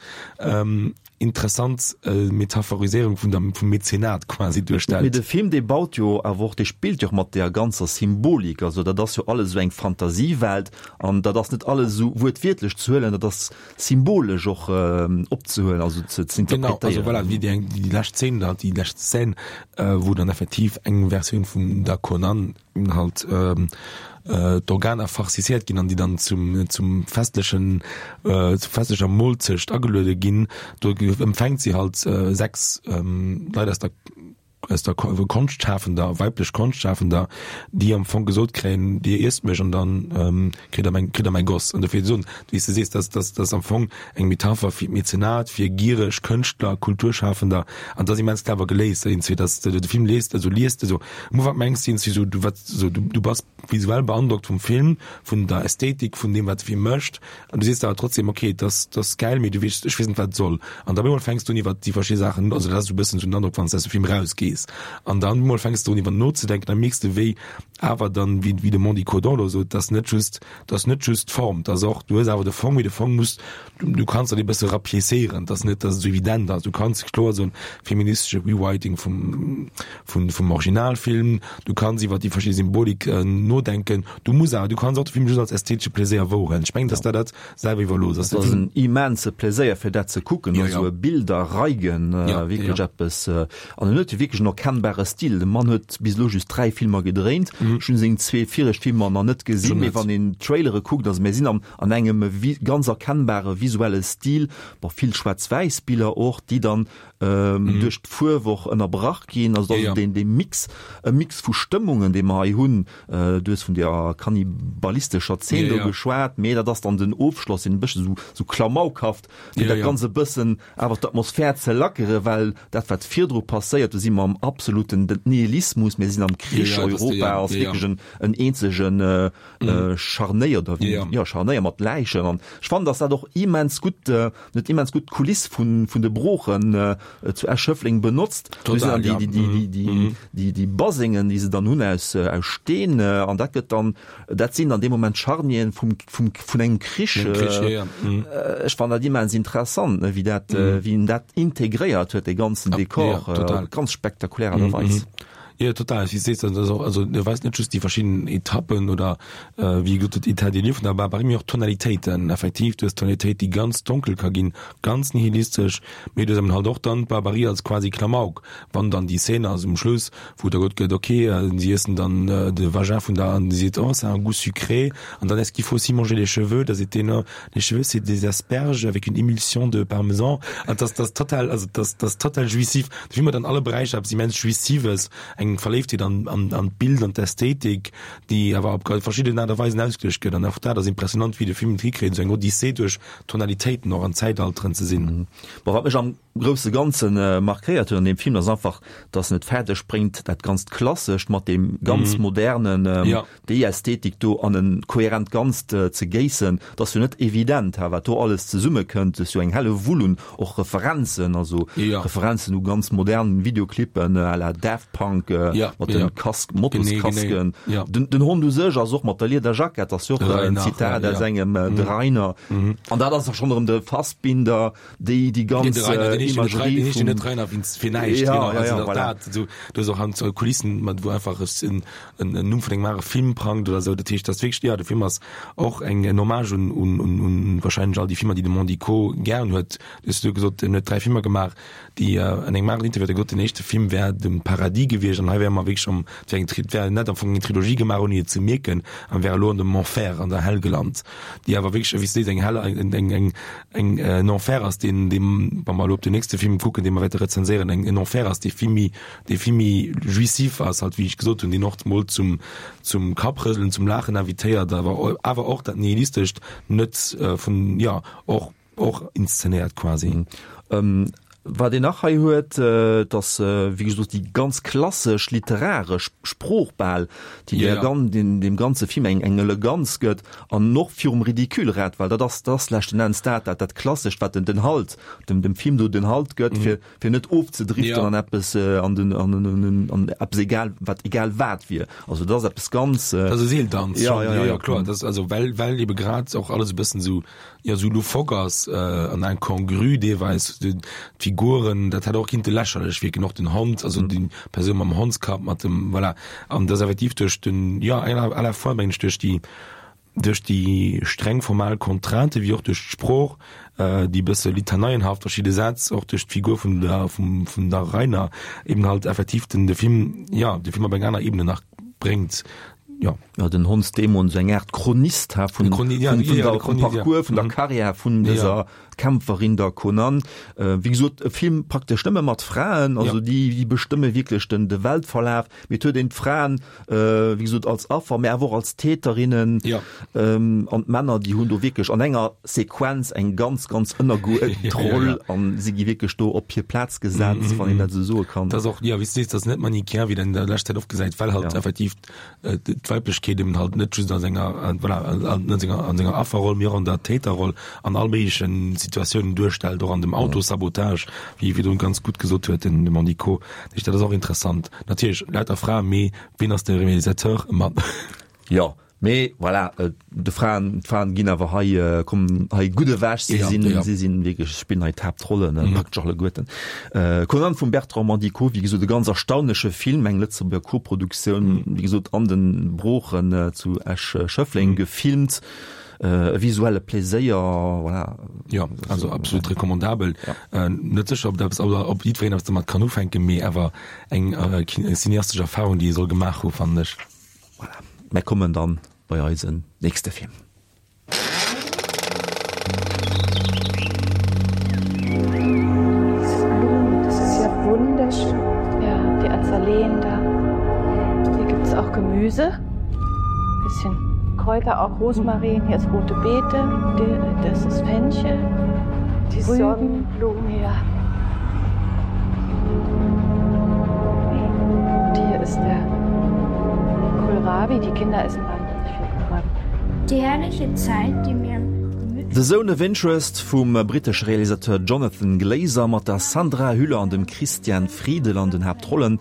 interessant Metaphoriséierung vun der, vum Mäzenat quasi duerstellt. Mee de Film, dee baut jo awer och, dee spillt jo och mat deer ganzer Symbolik. Also dat ass jo alles esou eng Fantasiewelt an dat ass net alles esou wuertwiertlech ze huelen, dat ass symbolesch och opzehuelen, also ze ze interpretéieren. Genau, also voilà, wéi déi eng, déi lescht Zeen da, déi lescht Scène, wou dann effektiv eng Versioun vum der Conan halt d'Organer farciciert ginn an déi dann zum zum festlechen zur festlecher Molzecht ageluede ginn, do empfänkt si halt 6 Leit aus der aus der Konschtschafender, weiblech Konschtschafender, déi am Fong gesot kréien, Dir iesst mech an dann kritt der mäin, kritt der mäi Goss. An dofir soen, wéi s de sees, dass, dass, dass am Fong eng Metapher fir d'Mäzenat, fir giereg Kënschtler, Kulturschafender, an dat ass immens clever geléist, iergendwéi, dass de de Film liest, also liest, also am Ufank mengs de iergendwéi sou, du wat, sou du, du bass visuell beandrockt vum Film, vun der Ästhetik, vun deem wat de Film mécht, an du sees der awer trotzdem, okay, et ass, et ass gäil, mee du weess, ech weess net wat et soll. An da op eemol fänks du un iwwer déi verschidde Saachen, also dat ass esou e bëssen esou den Androck wann s de aus dem Film rausgees, an dann op eemol fänks du un iwwer nozedenken, da mierks de wéi awer dann, wéi wéi de Mandy Codon elo sot, dass net just, dass net just d'Form, dass och, du hues awer de Fong, mee de Fong muss, du, du kanns dat e bësse rapiécéieren, dass net, dass et esou evident ass. Du kanns kloer soen, feministesche Rewriting vum, vun, vum Originalfilm, du kanns iwwer déi verschidde Symbolik nodenken, du muss awer, du kanns och de Film just als ästhetesche Pläséier wouerhuelen. Ech mengen, dass der dat selwer iwwerlooss ass. Et ass en immense Pläséier fir dat ze kucken, ja, esou e Bilderreigen, ja, wierklech ja. eppes. An en huet jo wierklech en erkennbare Stil. De Mann huet bis elo just 3 Filmer gedréint. Mhm. Ech hunn seng zwee viregt Filmer nach net gesinn, mee wann een d'Trailere kuckt, also mir sinn am, an engem ganz erkennbare visuelle Stil, bon, vill schwaarz-wäiss Biller och, déi dann ähm, mhm. duerch d'Fuerw och ënnerbrach ginn. Also ja, ja. den, den Mix, e Mix vu Stëmmungen, dee mer hei hunn. Äh, du hues vun der kannibalistescher Zeen ja, do ja. geschwat, mee dat ass dann den Ofschloss, den e bëssen so, so klamaukhaft, fir ja, dat ja. Ganze bëssen awer d'Atmosphär ze lackere, well dat wat virdru passéiert, do si mer am. am absoluten Nihilismus, mir sinn am Krich, Europa ass wierklech en en eenzegen Scharnéier oder wéi, jo Scharnéier mat Läichen. An ech fannen, datt dat och immens gutt, net immens gutt d'Kuliss vun vun de Broochen zu Esch-Schëffleng benotzt. Do sinn dann déi déi déi déi déi Basengen, déi se dann hunn aus aus Steen an dat gëtt dann, dat sinn an deem Moment d'Scharnieren vum vum vun engem Krich. Ech fannen dat immens interessant, ne, wéi dat wéi en dat integréiert huet, dee ganzen Dekor op ganz spektakulär Aart a Weis. Jo, total. Wéi s de sees, dat ass och, also e weist net just déi verschidden Etappen oder wéi gesot huet, État des lieux vun der Barbarie, mee och d'Tonalitéiten. Effektiv, du hues Tonalitéit, déi ganz donkel ka ginn, ganz nihilistesch, mee du hues eben halt och dann d'Barbarie als quasi Klamauk, wann dann déi Szene ass um Schluss, wou da gesot gëtt, okay, si iessen dann de Vagin vun der, an si seet, oh, ça a un goût sucré, an dann est-ce qu'il faut aussi manger les cheveux, da seet deen, oh, les cheveux c'est des asperges avec une émulsion de parmesan, an dat ass total, also dat ass total jouissif. De Film huet an alle Beräicher eppes immens Jouissives, eng Verléiftheet an, an, an d'Bild, an d'Ästhetik, déi awer op verschidden Aart a Weisen ausgeluecht gëtt. An och dat ass impressionant, wéi de Film et hikritt, esou eng Odyssee duerch Tonalitéiten och an Zäitalteren ze sinn. Bon, wat mech am grousse Ganze markéiert huet an deem Film, ass einfach, dass en et fäerdeg bréngt, dat ganzt Klassescht mat deem ganz Modernen, déi Ästhetik do an e kohärent Ganzt ze géissen, dat ass jo net evident, ha, wat do alles zesummekënnt. Et ass jo eng helle Wull un och Referenzen, also Referenzen u ganz modern Videoclippen à la Daft Punk mat de Kask, Motoskasken. Den Hond u sech ass och mat der Liederjackett, ass jo och en Zitat aus engem, de Rainer. An dat ass da schonn erëm de Fassbinder, déi déi ganz Imagerie vum. Net Rainer fir näischt, genau, also dat, du hues och an Kulissen, wou einfach en en Numm vun engem anere Film prangt oder esou. Dat heescht, dat ass wierklech, jo, de Film ass och eng en Hommage un, un, un, un wahrscheinlech all déi Filmer, déi de Mandico gären huet. Du hues du gesot, en huet 3 Filmer gemaach, déi an engem aneren Interview huet e gesot, den éischte Film wär dem Paradis gewiescht an hei wäre mer wierklech am, et wär eng Tri, et wär net am Fong eng Trilogie gemaach, ouni et ze mierken, an wär elo an dem Enfer, an der Hell gelant, déi awer wierklech, wéi s du sees, eng Hell, eng, eng, eng, eng, en Enfer ass, deen, deem, wa mer elo op den nächste Film kucken, dee mer wäerte rezenséieren, eng, en Enfer ass, dee vill méi dee vill méi jouissif ass, halt wéi ech gesot hunn, deen och mol zum zum Kapprëselen, zum Laachen invitéiert, awer awer och dat Nihilistescht net vun, jo, och och inszenéiert quasi. Wat een nach hei huet, et ass wéi gesot déi ganz klassesch literaresch Sprooch bal, déi der gan deem ganze Film eng eng Eleganz gëtt an och virum Ridicule rett, well dat ass dat ass leschten Enns dat dat dat Klassescht, wat den den Halt dem dem Film do den Halt gëtt, fir fir net ofzedriften ja. an eppes äh, an den an, an, an, an eppes egal wat egal wat wier. Also dat ass eppes ganz äh, das ist Seeltanz ja, ja, ja, ja, klar das also well well eben grad och alles e bëssen so ja so loufoque ass äh, an incongru deelweis d'Figuren dat hat och kinnte lächerlech wirken och den Hond also mm. die Persoun mam Hondskapp mat dem voilà an das effektiv duerch den ja à la fois mensch duerch die Duerch déi streng formal Contraintë wéi och duerch d'Sprooch, déi e bësse litaneienhaft verschidde Sätz, och duerch d'Figur vun der vum der Rainer eben halt effektiv den de Film, jo, de Film op eng aner Ebene nach bréngt, jo. Jo, den Hondsdämon, esou eng Aart Chronist ha vun vun der vum Parcours, vun der Karriär vun dëser Kämpferin, der Conan. Wéi gesot, e Film praktesch nëmme mat Fraen, also déi déi bestëmme wierklech den de Weltverlaf. Mee et huet een d'Fraen, wéi gesot, als Affer, mä awer och als Täterinnen. Ja. An d'Männer, déi hunn do wierklech an enger Sequenz eng ganz, ganz ënnergeuerdent Roll a si gi wierklech do op hir Plaz gesat, wann een dat esou soe kann. Dat ass och, jo, wéi s du sees, dat ass net manichéen, wéi een an der leschter Zäit oft gesäit, well halt effektiv d'Weiblechkeet eben halt net just a senger, voilà, an senger, an senger Afferroll, mee och an der Täterroll an all méiglechen Situatiounen duerstellt, och an dem Autosabotage, wéi e virdrun ganz gutt gesot huet, den Mandico. Dat ass och interessant. Natierlech lauter Fraen, mee ween ass de Realisateur? E Mann. Jo, mee voilà, de Fraen, d'Fraen ginn awer hei, kommen hei gutt ewech. Si sinn, si sinn wierklech, spillen hei d'Haaptrollen, praktesch alleguerten. Conan vum Bertrand Mandico, wéi gesot e ganz erstaunleche Film, eng Lëtzebuerger Koproduktioun, wéi gesot an de Broochen zu Esch-Schëffleng gefilmt. E visuelle Pléséier, voilà. Jo, also absolut recommandabel. Ja. Net sécher, ob dat, ob jiddwereen eppes domat kann ufänken, mee awer eng cineastesch Erfahrung, déi ee soll gemaach hu fannen ech. Voilà, mär kommen dann bei eisen nächste Film. Diese Blumen, das ist ja wunderschön. Ja, die Azaleen da. Hier gibt es auch Gemüse. Bisschen Kräuter, auch Rosmarin. Hier ist rote Beete. Das ist Fenchel. Die Rüben. Sonnenblumen, ja. ist der Kohlrabi. Die Kinder essen wahnsinnig viel Kohlrabi. Die herrliche Zeit, die mir The Zone of Interest vum brittesche Realisateur Jonathan Glazer mat der Sandra Hüller an dem Christian Friedel an den Haaptrollen.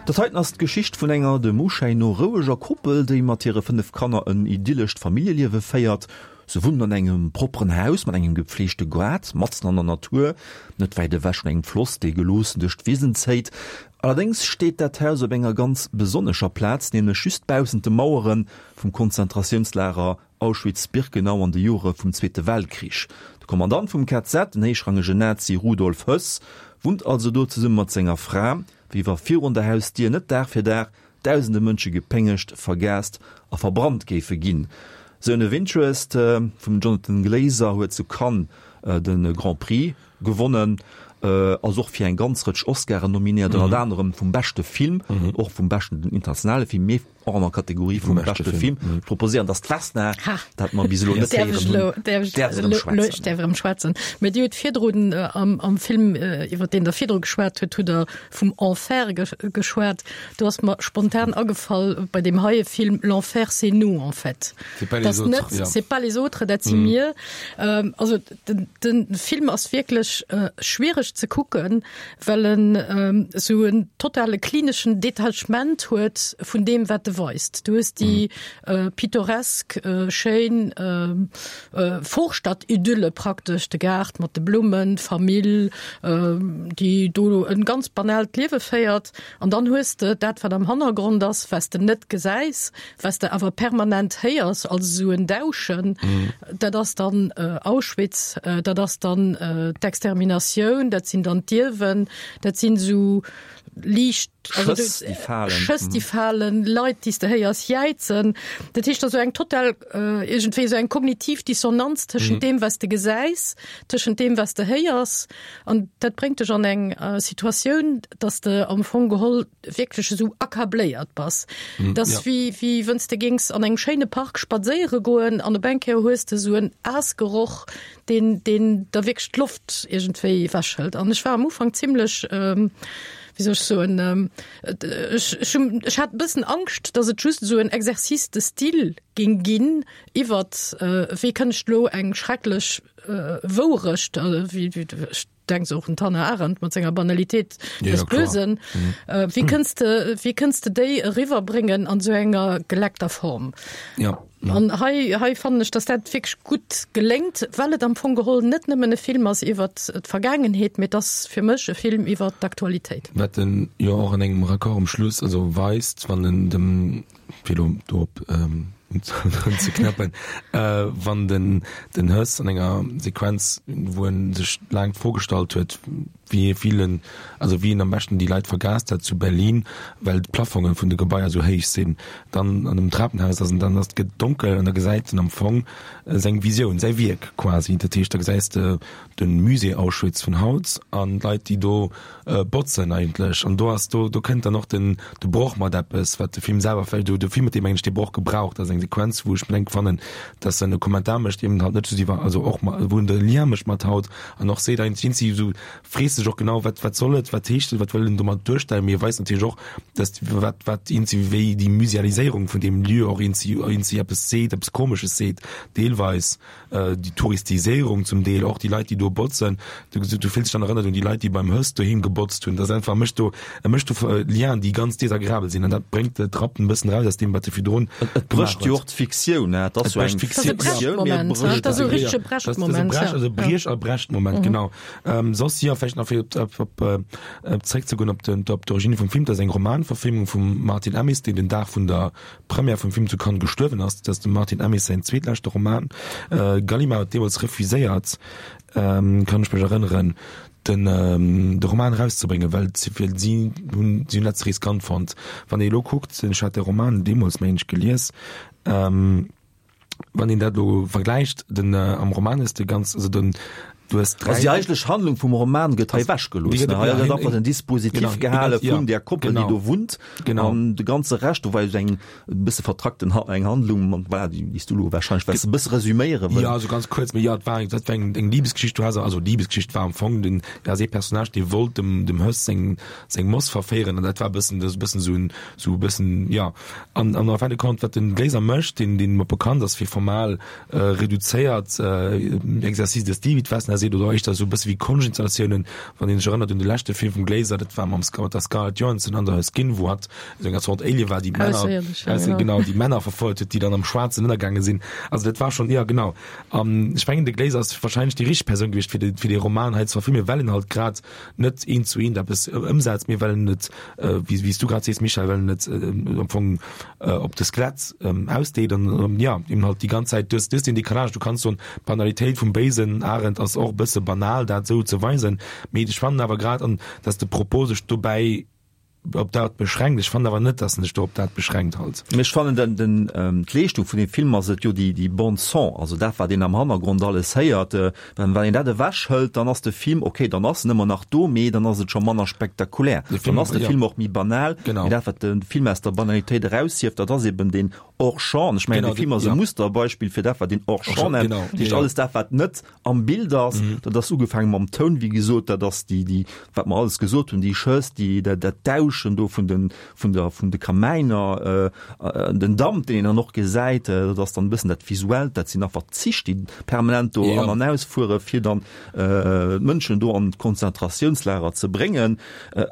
Dat heiten ass d'Geschicht vun enger dem Uschäin no roueger Koppel, déi mat hire 5 Kanner en idyllescht Familljeliewe féiert. Se wunnen an engem propperen Haus mat engem gepfleegte Gaart, matzen an der Natur, net wäit ewech vun engem Floss, dee geloossen duerch d'Wisen zéit. Allerdéngs steet dat Haus op enger ganz besonnescher Plaz, nämlech just baussent de Mauere vum Konzentratiounslager Auschwitz-Birkenau an de Jore vum Zweete Weltkrich. De Kommandant vum KZ, den héichrangegen Nazi Rudolf Höss, wunnt also do zesumme mat senger Fra, wéi wa virun der Hausdier net Dag fir Dag Dausende Mënsche gepéngegt, vergaast a verbrannt géife ginn. Zone of Interest vum Jonathan Glazer huet zu Cannes de Grand Prix gewonnen, ass och fir eng ganz Rëtsch Oscaren nominéiert, ënnert anerem vum beschte Film, och vum beschten internationale Film, mee och an der Kategorie vum beschte Film. Ech proposéieren, dass d'Vesna, dat mer bis elo net héieren hunn, däerf erëm schwätzen. Ech däerf erëm schwätzen. Mä Dir hutt virdrun am Film, iwwer deen Der virdru geschwat hutt, hutt Der vum Enfer geschwat. Do ass mer spontan agefall bei deem heie Film, L'enfer c'est nous en fait. C'est pas les autres, ja. C'est pas les autres, dat si mir. Also den, den Film ass wierklech schwiereg ze kucken, well en esou en totale klineschen Detachement huet vun deem wat e weist. Du hues déi pittoresk, schéin Vorstadtidylle praktesch, de Gaart mat de Blummen, d'Famill, déi do en ganz banaalt Liewe féiert. An dann hues de dat, wat am Hannergrond ass, wat s de net gesäis, wat s de awer permanent héiers als esou en Dauschen. Dat ass dann Auschwitz, dat ass dann d'Exterminatioun, dat sinn dann d'Ierwen, dat sinn esou liicht Schëss, déi falen. Schëss, déi falen, Leit, déi s de héiers jäizen. Dat heescht, esou eng total, iergendwéi esou eng kognitiv Dissonanz tëschent deem, wat s de gesäis, tëschent deem, wat s de héiers. An dat bréngt dech an eng Situatioun, dass de am Fong geholl wierklech esou accabléiert bass. Dat ass wéi, wéi wënn s de géings an engem schéine Park spadséiere goen an op eng Kéier hues de esou en Aasgeroch, deen, deen der wierklech d'Loft iergendwéi ewechhëlt. An ech war am Ufank zimlech, wéi soll ech soen, ech, ech hunn, ech hat e bëssen Angscht, dass et just esou en Exercice de style géing ginn iwwert, wéi kënn ech elo eng schrecklech Wourecht, wéi, ech denke och un d'Hannah Arendt mat senger Banalitéit des Bösen, wéi kënns de, wéi kënns de déi eriwwerbréngen an esou enger geleckter Form? Ja. An hei, hei fannen ech, dass dat wierklech gutt geléngt, well et am Fong geholl net nëmmen e Film ass iwwert d'Vergaangenheet, mee et ass fir mech e Film iwwert d'Aktualitéit. Wat en jo och an engem Raccord um Schluss also weist, wann en dem, fir elo do op unzeknäppen, wann den den Höss an enger Sequenz, wou en sech laang d'Fro gestallt huet, wéi vill en, also wéi en am beschten déi Leit vergaast hätt zu Berlin, well d'Plafonge vun de Gebaier esou héich sinn, dann an dem Trapenhaus ass en, dann ass, gëtt et donkel an da gesäit en am Fong seng Visioun, säi Wierk quasi. Dat heescht, da gesäis de de Musée Auschwitz vun haut an d'Leit, déi do botzen eigentlech. An do ass, do, do kënnt dann och den, de Broch mat eppes, wat de Film selwer vläicht, de Film huet deem eigentlech dee Broch gebraucht. Dat ass eng Sequenz, wou ech mir denke fannen, dass en e Kommentar mécht, eben halt net just iwwer, also och ma, wou en de Lien mécht mat haut an och seet eigentlech, si sou frees sech och genau, wat, wat soll et, wat heescht et, wat wëll en domat duerstellen, mee e weist natierlech och, dass wat, wat eenzi wéi déi Musealiséierung vun deem Lieu och eenzi, eenzi eppes seet, eppes Komesches seet, deelweis. Déi Touristiséierung zum Deel, och déi Leit, déi do botzen, du, du fills dech dann erënnert un déi Leit, déi beim Höss doheem gebotzt hunn. Dat ass einfach, mécht do, e mécht do Lienen, déi ganz desagreabel sinn an dat bréngt d'Rappen e bëssen eraus aus deem, wat e virdrun Et brécht jo och d'Fiktioun, ne? Et ass jo eng Fiktioun, mee et brécht Et ass e richtege Brechtmoment, ja. Also Briech a Brechtmoment, genau. Soss, jo, vläicht nach fir op, op, op zréckzegoen op den, op d'Origine vum Film, dat ass eng Romanverfilmung vum Martin Amis, deen den Dag vun der Première vum Film zu Cannes gestuerwen ass. Dat ass dem Martin Amis säin zweetleschte Roman. Gallimard huet deemools refuséiert, kann ech mech erënneren, den de Roman erauszebréngen, well si hunn si hunn dat ze riskant fonnt. Wann ee elo kuckt, ech hat de Roman deemools, mengen ech, gelies, Wann een dat elo vergläicht, den am Roman ass de ganz, also den. Du hues 3. Also déi eigentlech Handlung vum Roman gëtt hei ewechgelooss. Hei gëtt einfach den Dispositif gehale vun där Koppel, déi do wunnt. An de ganze Rescht, do war jo eng e bësse vertrackten eng Handlung, voilà, déi s du elo warscheinlech wess e bësse resüméiere wëll. Jo, also ganz kuerz, mee jo, et war eng, dat war eng, eng Libesgeschicht. Du has, also Libesgeschicht war am Fong den, da ass ee Personnage, dee wollt dem, dem Höss seng, seng Moss verféieren an dat war e bëssen, dat ass e bëssen esou en, esou e bëssen, jo. An, an en fin de compte, wat den Glaser mécht, deen, deen mer bekannt ass fir formal reduzéiert Exercice de style, wéi d'Vesna seet, oder éischter esou e bësse wéi Konschtinstallatiounen, wann een sech erënnert un de leschte Film vum Glaser, dat war mam mat der Scarlett Johansson an der Skin, wou hatt esou eng Zort Alien war, déi d'Männer, genau, déi Männer verfouert huet, déi dann am Schwaarzen ënnergaange sinn. Also dat war schonn, jo genau. An ech mengen, de Glaser ass wahrscheinlech déi richteg Persoun gewiescht, fir de, fir dee Roman hei ze verfilmen, well en halt grad net eent zu eent eppes ëmsetzt, mee well en et, wéi wéi s du grad sees, Michèle, well en et am Fong op de Skelett ausdeet an jo, eben halt déi ganz Zäit, du hues, du hues deen Décalage, du kanns soen, d'Banalitéit vum béisen Arend ass och e bësse banal, dat esou ze weisen, mee ech fannen awer grad, an dass de Propos sech dobäi op dat beschränkt, ech fannen awer net, dass en sech do op dat beschränkt halt. Mee ech fannen den, den, d'Leeschtung vun deem Film ass et jo déi, déi Bande son, also dat wat een am Hannergrond alles héiert, Well wann een dat ewech hëlt, dann ass de Film, ok, dann ass en ëmmer nach do, mee dann ass et scho manner spektakulär. Dann ass de Film och méi banal. Mee dat, wat de Film aus der Banalitéit eraushieft, dat ass eben deen Hors-champ. An ech mengen, de Film ass e Musterbeispill fir dat, wat een Hors-champ nennt. Dat heescht, alles dat, wat net am Bild ass, dat ass ugefaange mam Toun, wéi gesot, dat ass déi, déi, wat mer alles gesot hunn, déi Schëss, déi, dat, dat Dauschen do vun den, vun der, vun de Kamäiner, den Damp, deen een dann och gesäit, dat ass dann e bëssen dat Visuellt, dat sinn einfach d'Zich, déi permanent do an an ausfuere fir dann d'Mënschen do an d'Konzentratiounslager ze bréngen.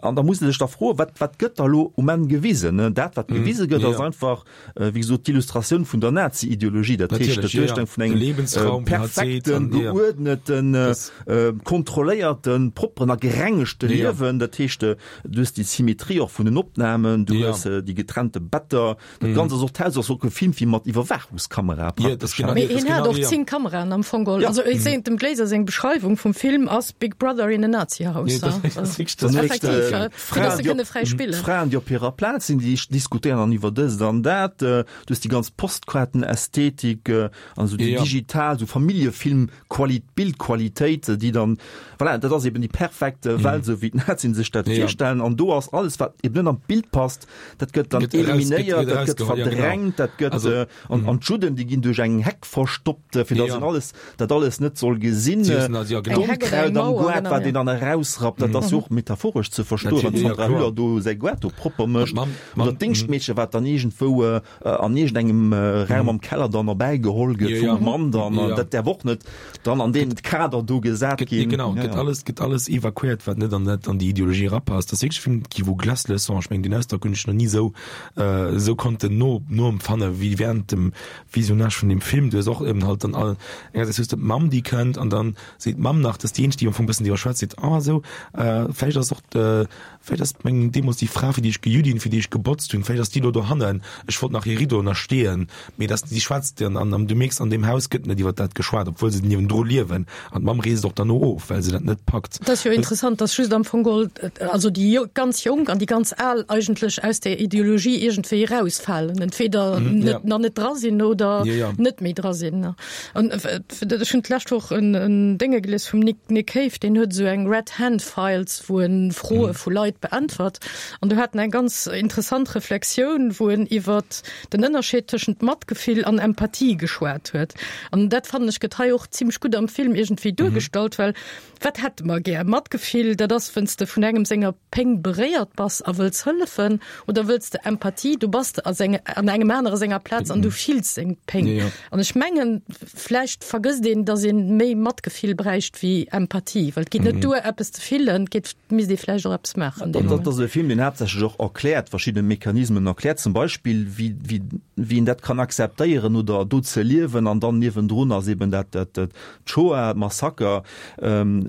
An da muss ee sech da froen, wat, wat gëtt da lo um Enn gewisen? Dat, wat gewise gëtt, ass einfach, wéi gesot, d'Illustratioun vun der Nazi-Ideologie, dat heescht d'Duerstellung vun engem perfekten, geuerdneten, kontrolléierten, propperen a gerengegte Liewen, dat heescht, Du hues déi Symmetrie och vun den Opnamen, du hues déi getrennte Better, dat Ganzt ass och, d'Haus ass och gefilmt wéi mat Iwwerwaachungskamera praktesch. Mee hien hat och 10 Kameraen am Fong geholl. Also ech sehen, dem Glaser seng Beschreiwung vum Film ass Big Brother in a Nazi House. Effektiv, fir dass se kënne fräi spillen. D'Fraen, déi op hirer Plaz sinn, déi diskutéieren dann iwwer dëst an dat. Du hues déi ganz Postkaartenästhetik an esou déi digital, esou Familljefilm Quali Bildqualitéit, déi dann, voilà, dat ass eben déi perfekt Welt, esou wéi d'Nazien sech dat virstellen. An do ass alles, wat eben net an d'Bild passt, dat gëtt dann eliminéiert, dat gëtt verdrängt, dat gëtt, an, an d'Judden, déi ginn duerch eng Heck verstoppt, fir datt een alles, dat alles net soll gesinn. D'Onkraut am Goart, wat een dann erausrappt, dat ass jo och metaphoresch ze verstoen, wann d'Sandra Hüller do säi Goart do propper mécht. Oder d'Déngschtmeedche, wat dann iergendwou an iergendengem Raum am Keller dann erbäi geholl gëtt vum Mann dann, dat däerf och net dann an deen Kader do gesat ginn. Genau, gëtt alles, gëtt alles evakuéiert, wat net an dat, an déi Ideologie erapasst. Dat ass wierklech e Film qui vous glace le sang. Ech mengen, deen Ausdrock hunn ech nach ni esou, esou konnten no, noempfanne wéi während dem Visionnage vun deem Film. Du hues och eben halt dann all, engersäits hues de d'Mamm, déi kënnt an dann seet d'Mamm nach, dat ass déi eenzeg, déi am Fong e bëssen driwwer schwätzt, seet, ah esou, vläicht ass och de, Vläicht ass meng deemools déi Fra, fir déi ech gejut hunn, fir déi ech gebotzt hunn, vläicht ass déi elo dohannen. Ech wollt nach hir Riddoen ersteeën, mee dass si schwätzt an an du mierks, an deem Haus gëtt net iwwer dat geschwat, obwuel se niewendru liewen. An d'Mamm reest och derno of, well se dat net packt. Et ass jo interessant, dass just am Fong geholl, also déi ganz Jonk an déi ganz Al eigentlech aus där Ideologie iergendwéi erausfalen, entweder net, nach net dra sinn oder net méi dra sinn. An ech hunn d'lescht Woch en Dénge gelies vum Nick Nick Cave, deen huet esou eng Red Hand Files, wou en Froe vu Leit beäntwert. An do hat en eng ganz interessant Reflexioun, wou en iwwer den Ënnerscheed tëschent Matgefill an Empathie geschwat huet. An dat fannen ech gëtt hei och zimmlech gutt am Film iergendwéi duergestallt, well wat hätte mer gär? Matgefill, dat ass, wenn's de vun engem senger Péng beréiert bass a wëlls hëllefen, oder wëlls de Empathie, du bass a senge, an engem anere senger Plaz an du fills seng Péng. An ech mengen, vläicht vergësst een, datt ee méi Matgefill bräicht wéi Empathie, well et geet net duer, eppes ze fillen, et geet, misst ee vläicht och eppes maachen dee Moment. Dat ass e Film, deen haaptsächlech och erkläert, verschidde Mechanismen erkläert, zum Beispill wéi, wéi, wéi een dat kann akzeptéieren oder do ze liewen an dann niewendrun ass eben dat, dat, d'Shoah, d'Massaker.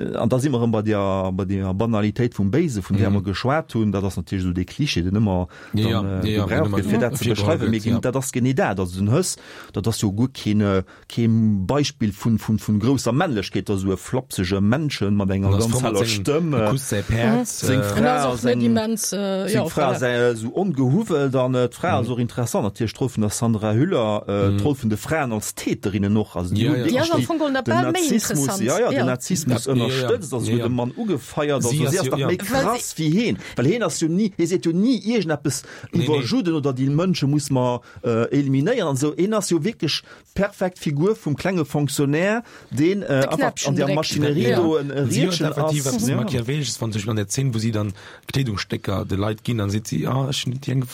An da si mer erëm bei der, bei der Banalitéit vum Béise, vun där mer geschwat hunn. Dat ass. ass natierlech esou dee Klischee, deen ëmmer dann gebraucht gëtt, fir dat ze beschreiwen, mee dat ass genee dat. Also den Höss, dat ass jo guer keen, Kee Beispill vun vun grousser Männlechkeet, dat ass esou e flapsege Männchen mat enger ganz heller Stëmm. Seng Fra ass eng seng Fra ass esou ongehuwwelt an d'Fra ass och interessant, natierlech d'Roll vun der Sandra Hüller, d'Roll vun de Fraen als Täterinnen och, also déi hunn wierklech den Nazismus, jo jo, den Nazismus ënnerstëtzt, also huet de Mann ugefeiert, also si ass nach méi krass wéi heen, well heen ass jo ni, hee seet jo ni iergendeppes iwwer Judden oder déi Mënsche muss mer eliminéieren an esou. Heen ass jo wierklech d'perfekt Figur vum klenge Fonctionnaire, deen einfach an der Maschinerie do en Riedchen ass. Si huet effektiv eppes Machiavellesches, wann zum Beispill an der Zeen, wou si dann Kleedungsstécker de Leit ginn, dann seet si, ah, ech hunn déi eng,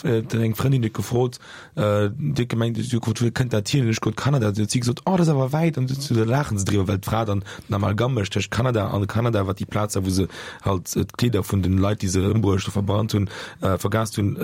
eng Frëndin huet gefrot, déi huet gemengt, si huet gefrot, wou kënnt dat hier? An ech gesot, Kanada. Dann huet si gesot, oh, dat ass awer wäit. An da laachen se driwwer, well d'Fra dann den Amalgam mécht tëscht Kanada an Kanada, wat déi Plaz war, wou se halt d'Kleeder vun den Leit, déi se ëmbruecht a verbrannt hunn, vergast hunn,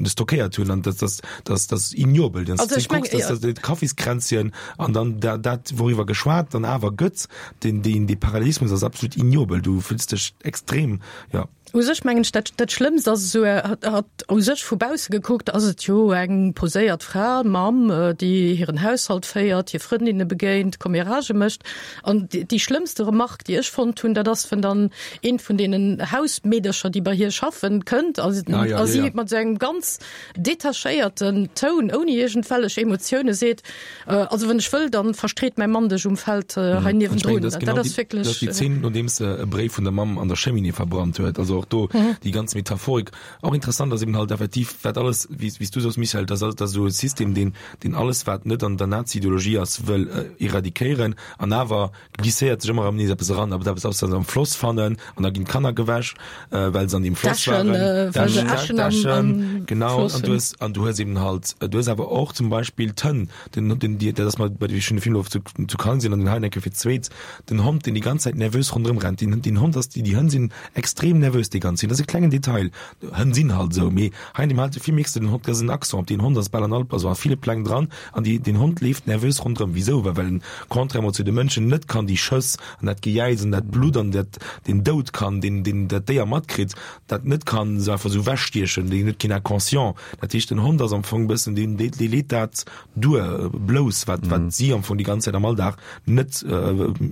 stockéiert hunn. An dat ass, dat ass ignoble. Dann also, ich mein, ja. dat Kaffiskränzchen an dann dat, dat wouriwwer geschwat dann awer gëtt, den, den, de Parallelismus ass absolut ignoble. Du fühlst dech extrem, ja. U sech mengen ech, dat, dat Schlëmmst ass esou, hat, hat u sech vu bausse gekuckt ass et jo eng poséiert Fra, Mamm, déi hiren Haushalt féiert, hir Frëndinne begéint, Comméragë mécht. An déi schlëmmste Remarque, déi ech fonnt hunn, dat ass, wenn dann eent vun deenen Hausmeedercher, déi bei hir schaffen, kënnt a si mat esou engem ganz detachéierten Toun, ouni iergendwellech Emotioune seet, Also wann ech wëll, dann verstreet mäi Mann dech um Feld hei niewendrun. Dat ass wierklech. Dat ass déi Zeen, nodeems se e Bréif vun der Mamm an der Cheminée verbrannt huet. Also och do déi ganz Metaphorik. Och interessant ass eben halt effektiv, wat alles, wéi s du soos, Michèle, dat ass esou e System, deen, deen alles, wat net an der Nazi-Ideologie ass, wëll eradikéieren an awer glisséiert sech ëmmer erëm nees eppes eran, aber eppes ass, wat se am Floss fannen an da ginn d'Kanner gewäsch, well se an deem Floss waren. Däschen, well se Äschen am, am genau, Floss an du hues, an du hues eben halt, du hues awer och zum Beispill d'Hënn, den, den, déi, dat ass mer bei de, ech hunn de Film elo zu, zu Cannes gesinn an den hei eng Kéier fir d'zweet, den Hond, deen déi ganz Zäit nervös ronderëm rennt, deen, deen Hond ass, déi, déi Hënn sinn extrem nervös déi ganz Zäit, dat ass e klengen Detail, Hënn sinn halt esou, mee hei an deem heite Film mierks de, den Hond, dat ass en Accent op deen Hond ass bal an all, also a ville Pläng dran, An déi, den Hond leeft nervös ronderëm. Wisou? Well well en, contrairement zu de Mënschen, net kann déi Schëss an dat Gejäiz an dat Blutt an dat, den Doud kann, deen, deen dat Déier matkritt, dat net kann esou einfach esou ewechstiechen. Deen huet keen Inconscient. Dat heescht, den Hond ass am Fong e bëssen deen, dee, dee leet dat duer, blouss, wat, wat si am Fong déi ganz Zäit am Alldag net,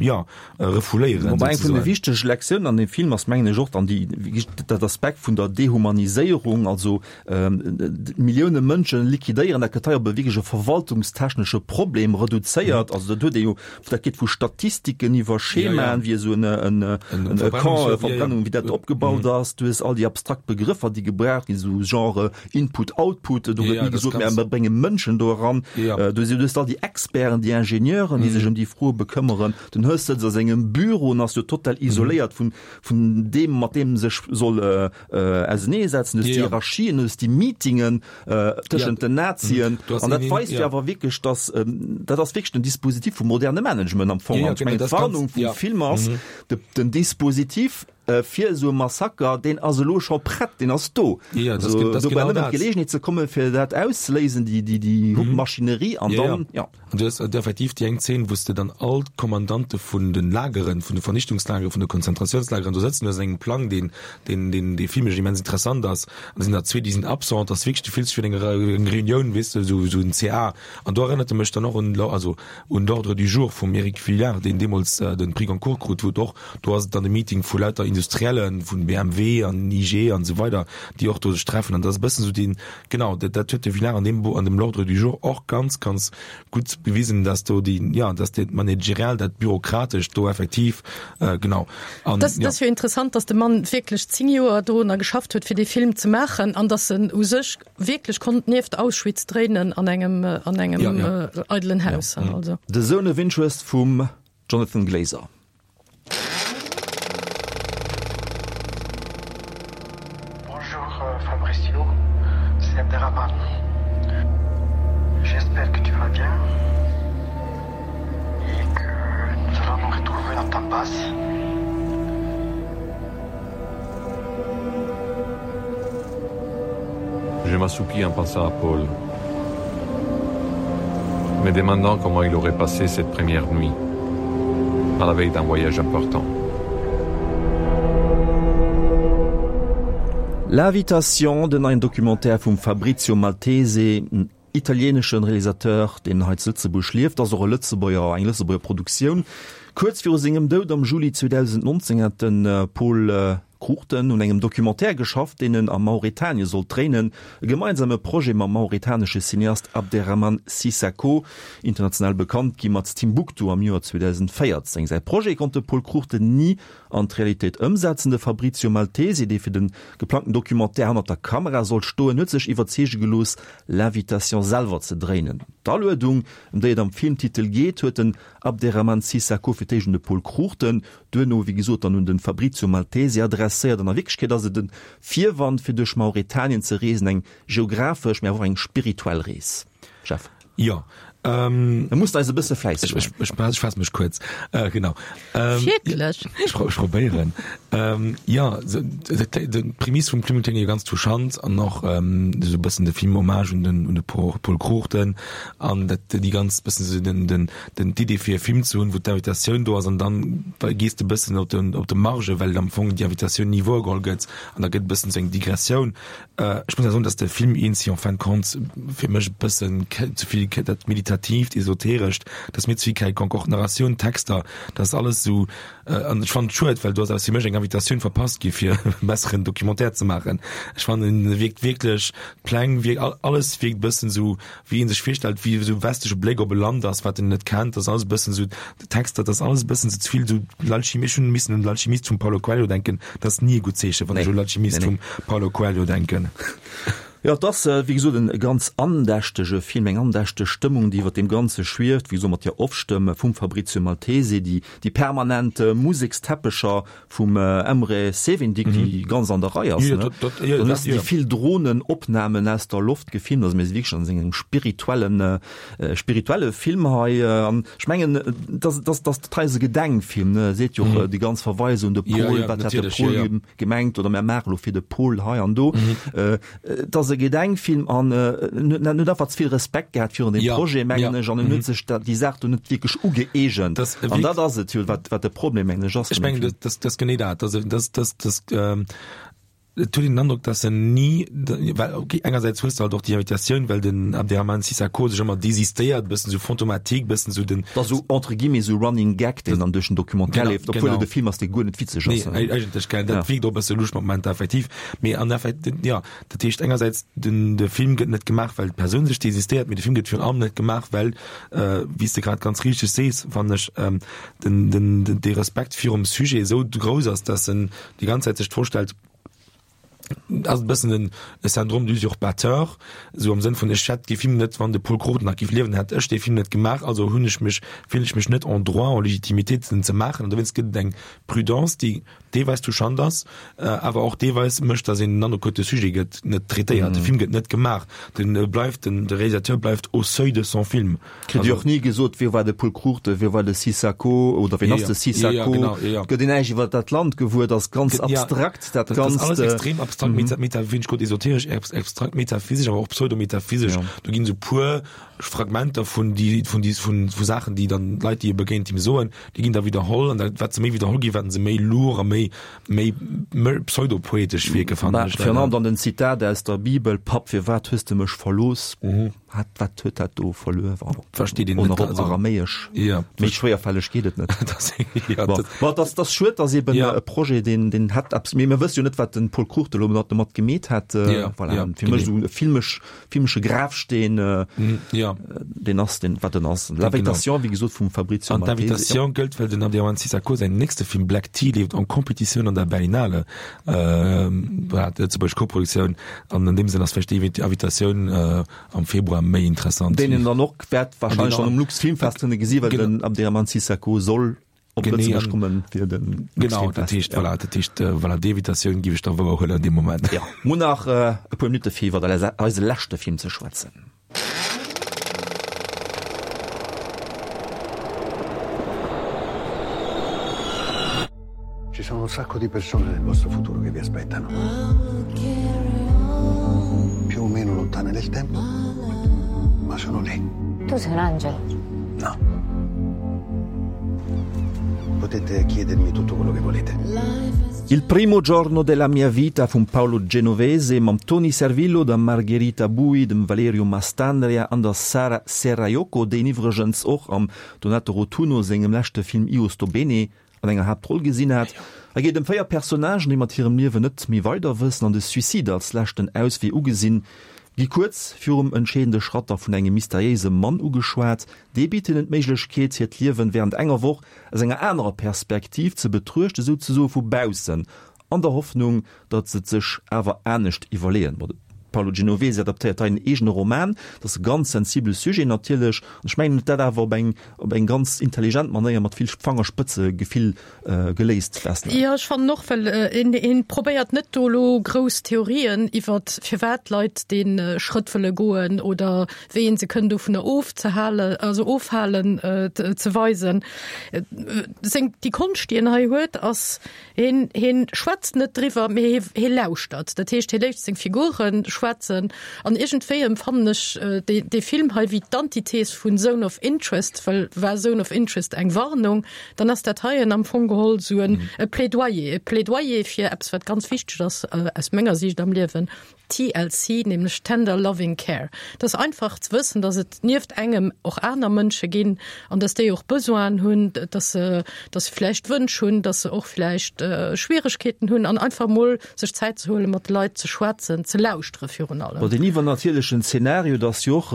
jo, refouléieren. Wobei eng vun de wichtege Lektiounen an deem Film ass, mengen ech, och dann déi, dat Aspekt vun der Dehumaniséierung, also, Millioune Mënsche liquidéieren, dat gëtt hei op e wierklech e verwaltungstechnesche Problem reduzéiert. Also dat huet ee jo, dat geet vu Statistiken iwwer Schemaen, wéi esou en e Camp, Verbrennung, wéi dat opgebaut ass. Du hues all déi abstrakt Begrëffer, déi gebraucht ginn, esou Genre Input, Output. Do gëtt ni gesot, mä mir brénge Mënschen do eran. Du hues all déi Experten, déi Ingenieuren, déi sech ëm déi Froe bekëmmeren. Den Höss sëtzt a sengem Büro an ass jo total isoléiert vun deem, mat deem e sech soll auseneesetzen, du hues déi Hierarchien, du hues déi Meetingen tëschent den Nazien an dat weist jo awer wierklech, datt dat ass wierklech den Dispositif vum moderne Management am Fong. An ech mengen, d'Warnung vum Film ass, den Dispositif fir esou e Massaker, deen ass elo scho prett, deen ass do. Also do brauch nëmmen d'Geleegenheet ze kommen, fir dat auszeléisen, déi Maschinerie an dann, jo. An du hues effektiv déi eng Zeen, wou s de dann all d'Kommandante vun de Lageren, vun de Vernichtungslageren, vun de Konzentratiounslageren do sëtzen hues an engem Plang, deen, deen, deen, dee filmesch immens interessant ass. An da sinn der zwee, déi sinn absent. Dat ass wierklech, du fills dech wéi an enger eng Reunioun, weess de, esou, esou en CA. An do erënnert e mech dann och un, also un L'Ordre du jour vum Eric Vuillard, deen deemools de Prix Goncourt krut, wou et och, do ass et dann e Meeting vu lauter Industriellen, vun BMW an IG an esou weider, déi och do sech treffen. An dat ass e bëssen esou deen, Genau, dat, dat huet de Villard an deem Buch, an dem L'Ordre du jour och ganz, ganz gutt bewisen, dass do déi, ja, dass dat Managerial, dat Bürokratescht do effektiv, äh, genau. An, Das, ja. das jo interessant, dass de Mann wierklech 10 Joer dorunner geschafft huet, fir dee Film ze maachen an dass en u sech wierklech konnt nieft Auschwitz dréinen an engem, an engem ja, ja. Äh, eidelen Haus. Ja. Also. The Zone of Interest vum Jonathan Glazer. Bonjour euh, Fabricio, c'est Abderrahman. J'espère que tu vas bien et que nous allons nous retrouver dans ta passe. Je m'assoupis en pensant à Paul, me demandant comment il aurait passé cette première nuit à la veille d'un voyage important. L'Invitation, den neien Documentaire vum Fabrizio Maltese, en italieneschen Realisateur, deen hei zu Lëtzebuerg lieft, ass och e Lëtzebuerger, eng Lëtzebuerger Produktioun. Kuerz viru sengem Doud am Juli 2019 hat de Pol Cruchten un engem Documentaire geschafft, deen en a Mauretanien sollt dréinen, e gemeinsame Projet mam mauretanesche Cineast Abderrahmane Sissako, international bekannt gi mat Timbuktu am Joer 2014. Säi Projet konnt de Pol Cruchten ni an d'Realitéit ëmsetzen. De Fabrizio Maltesi, dee fir de geplangten Documentaire hannert der Kamera sollt stoen, huet sech iwwerzeege gelooss, L'Invitation selwer ze dréinen. D'Aluedung, ëm déi et am Filmtitel geet, huet den Abderrahmane Sissako fir d'éischt un de Pol Cruchten, duerno wéi gesot dann un de Fabrizio Maltesi adresséiert. An a Wierklechkeet ass et e Virwand, fir duerch Mauretanien ze reesen, eng geographesch, mä awer och eng spirituell Rees. Jeff. Jo. Da muss de eis e bësse fläisseg maachen. Ech, ech faasse mech kuerz. Genau. Wierklech? Ech probéieren. Jo, d'Prämiss vum Film kléngt jo ganz touchant an och esou e bëssen de Film Hommage un den, un de Paul Cruchten an dat déi ganz bëssen esou den, den, den, d'Idee fir e Film ze hunn, wou d'Invitatioun do ass an dann gees de bëssen op de, op de Marge, well am Fong déi Invitatioun ni wouergeholl gëtt an da gëtt e bëssen esou eng Digressioun. Ech muss awer soen, dass de Film eens en fin de compte fir mech e bëssen ze vill dat Meditatiivt, Esoterescht, dat ass mir ze vill quelconque. Och d'Narratioun, d'Texter, dat ass alles esou, an ech fannen et schued, well do ass aus fir mech eng Invitatioun verpasst gi fir e besseren Documentaire ze maachen. Ech fannen e wierkt wierklech, d'Pläng wierk, alles wierkt e bëssen esou wéi ee sech virstellt, wéi esou westleche Bléck op e Land ass, wat en net kennt, dat ass alles e bëssen esou, d'Texter, dat ass alles e bëssen ze vill esou l'Alchimie, ech hunn missen un L'Alchimiste vum Paulo Coelho denken, dat ass ni e gutt Zeechen, wann ech u L'Alchimiste vum Paulo Coelho denken. Jo, et ass, wéi gesot, e ganz andächtege Film, eng andächteg Stëmmung, déi iwwer deem Ganze schwieft, wéi gesot, mat där Off-Stëmm vum Fabrizio Maltese, déi, déi permanent Museksteppecher Vum Emre Sevindik, déi ganz an der Rei ass, ne? Dann hues de déi vill Dronenopnamen aus der Loft gefilmt. Also mir si wierklech an engem spirituellen, spirituelle Film hei. An ech mengen, dass, dass, dass dat hei ass e Gedenkfilm, ne? Seet jo och déi ganz Verweise un de Pol, wat hätt de Pol gemengt oder mär maache lo fir de Pol hei an do. Et ass e Gedenkfilm an en huet en huet einfach ze vill Respekt gehat virun deem Projet, mengen ech, an en huet sech dat, déi Saach do net wierklech ugëeegent. An dat ass et jo, wat, wat de Problem, mengen ech, ass. Ech mengen, dat, dat ass genee dat. Dat, dat, dat, dat, et huet een den Androck, dass en ni, well okay, engersäits hues de halt och déi Invitatioun, well den Abderrahmane Sissako sech ëmmer désistéiert, bëssen esou fantomatique, bëssen esou den. Dat ass esou entre guillemets esou Running Gag, deen dann duerch den Documentaire leeft, obwuel et e Film ass, dee guer net witzeg ass. Nee, eigentlech, gell, dat wierkt och e bësse lusch mat Momenter, effektiv. Mee an effekt, jo, dat heescht engersäits, den, de Film gëtt net gemaach, well d'Persoun sech désistéiert, mee de Film gëtt virun allem net gemaach, well, wéi s de grad ganz richteg sees, fannen ech, den, den, den, dee Respekt virum Sujet esou grouss ass, dass en déi ganz Zäit sech d'Fro stellt, ass e bëssen en e Syndrome d'usurpateur, esou am Sënn vun, ech hätt dee Film net, wann de Pol Cruchten nach géif liewen, hätt ech dee Film net gemaach, also hunn ech mech, fillen ech mech net en droit, en légitimité, en ze maachen. An dowéinst gëtt et eng Prudence, déi deelweis touchant ass, awer och deelweis mécht, datt een den Androck huet, de Sujet gëtt net traitéiert, de Film gëtt net gemaach, de bleift, den de Réalisateur bleift au seuil de son film. Kritt Dir och ni gesot, wie war de Pol Cruchten, wie war de Sissako oder wien ass de Sissako? Et gëtt een näischt iwwer dat Land gewuer, et ass ganz abstrakt dat Ganzt. Dat ass alles extrem abstrakt, meta, wéi ech gesot, esoteresch, abstrakt, metaphysesch, awer och pseudometaphysesch. Do ginn esou puer Fragmenter vun déi, vun déi, vun, vu Saachen, déi dann d'Leit, déi e begéint, him soen, déi ginn da widderholl an dat, wat se méi widderholl ginn, wat se méi lourd a méi, méi, méi pseudopoetesch wierken, fannen ech leider. Virun allem dann den Zitat aus der Bibel, Papp, firwat hues de mech verlooss? Hat, wat huet dat do verluer? Versteet een net. Och op Aramäesch. Ja. Méi schwéierfälleg geet et net. Das, ja, bon. Bon, das, das schued, dass eben ja. e Projet, deen, deen hätt eppes, mee mir wësse jo net, wat den Pol Cruchten elo domat gemeet hätt. Ja, voilà. ja, Fir mech esou e filmesch Filmesche Grafsteen, ja. deen ass deen, wat en ass. L'Invitation, wéi gesot, vum Fabrizio An d'Invitation gëllt, well den Abderrahmane Sissako säin nächste Film Black Tea leeft en Competitioun an der Berlinale, voilà, d'lëtzebuergesch Koproduktioun. An an deem Sënn ass vläicht déi Invitatioun am Februar méi interessant. Deen een dann och wäert wahrscheinlech dann um Luxfilmfest kënne gesi, well den Abderrahmane Sissako soll op Lëtzebuerg kommen fir den Genau, dat heescht, voilà, dat heescht, voilà, déi Invitatioun géif ech da wouer huelen an deem Moment. Ja, mir hunn nach e puer Minutte fir iwwer eise leschte Film ze schwätzen. Ci sono un sacco di persone nel vostro futuro che vi aspettano. Più o meno lontane nel tempo, ma sono lì. Tu sei un angelo? No. Potete chiedermi tutto quello che volete. Il primo giorno della mia vita vum Paolo Genovese mam Toni Servillo, der Margherita Buy, dem Valerio Mastandrea an der Sara Serraiocco, déi een iwwregens och am Donato Rotunno sengem leschte Film Io sto bene an enger Haaptroll gesinn hat. Et geet ëm 4 Personnagen, déi mat hirem Liewen net méi weider wëssen an de Suicide als leschten Auswee ugesinn, gi kuerz virum entscheedende Schratt da vun engem mysteriéise Mann ugeschwat. Dee bitt hinnen d'Méiglechkeet, hiert Liewen wärend enger Woch aus enger anerer Perspektiv ze betruechten, souzesoe vu baussen, an der Hoffnung, datt se et sech awer anescht iwwerleeën. Bon, de Paolo Genovese adaptéiert hei en eegene Roman, dat ass e ganz sensibele Sujet natierlech, an ech mengen, en huet dat awer op eng op eng ganz intelligent Manéier mat vill Fangerspëtzegefill geléist. Vesna. Jo, ech fannen och, well een een probéiert net do elo grouss Theorien iwwert firwat d'Leit dee Schrëtt wëlle goen oder wéi een se kënn dovunner ofzehalen, also ofhalen, ze weisen. Seng, déi Konscht, déi en hei huet, ass, Hien, hien schwätzt net driwwer, mee hie, hie lauschtert. Dat heescht, hie léisst seng Figure schwätzen. An iergendwéi empfannen ech dee, dee Film hei wéi d'Antithes vun Zone of Interest, well war Zone of Interest eng Warnung, dann ass dat heien am Fong geholl esou en, e Plädoyer, e Plädoyer fir eppes, wat ganz wichteg ass aus menger Siicht am Liewen, TLC, nämlech Tender Loving Care. Et ass einfach ze wëssen, dass et nieft engem och aner Mënsche ginn an dass déi och Besoinen hunn, dass se, dass se vläicht Wënsch hunn, dass se och vläicht Schwieregkeeten hunn an einfach mol sech Zäit ze huelen, mat de Leit ze schwätzen, ze lauschtere virun allem. Bon, deen iwwernatierlechen Zeenario, dat ass jo och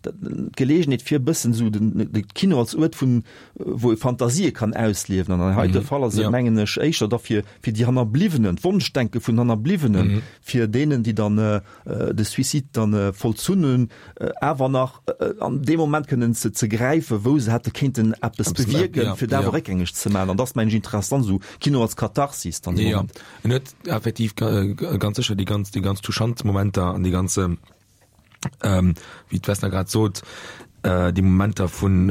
d'Geleegenheet fir e bëssen esou de Kino als Uert vun, wou ee Fantasië kann ausliewen. An an heite Fall ass et, mengen ech, éischter da fir, fir déi Hannerbliwwenen, d'Wonschdenke vun Hannerbliwwenen, fir deenen, déi dann de Suicide dann vollzunn hunn, awer nach an deem Moment kënnen ze ze gräifen, wou se hätte kéinten eppes bewierken, fir dat awer réckgängeg ze maachen. An dat ass, mengen ech, interessant, esou Kino als Katharsis dann dee Moment. Jo, en huet effektiv ganz sécher déi ganz, déi ganz touchant Momenter an déi ganz, wéi d'Vesna grad sot, déi Momenter vun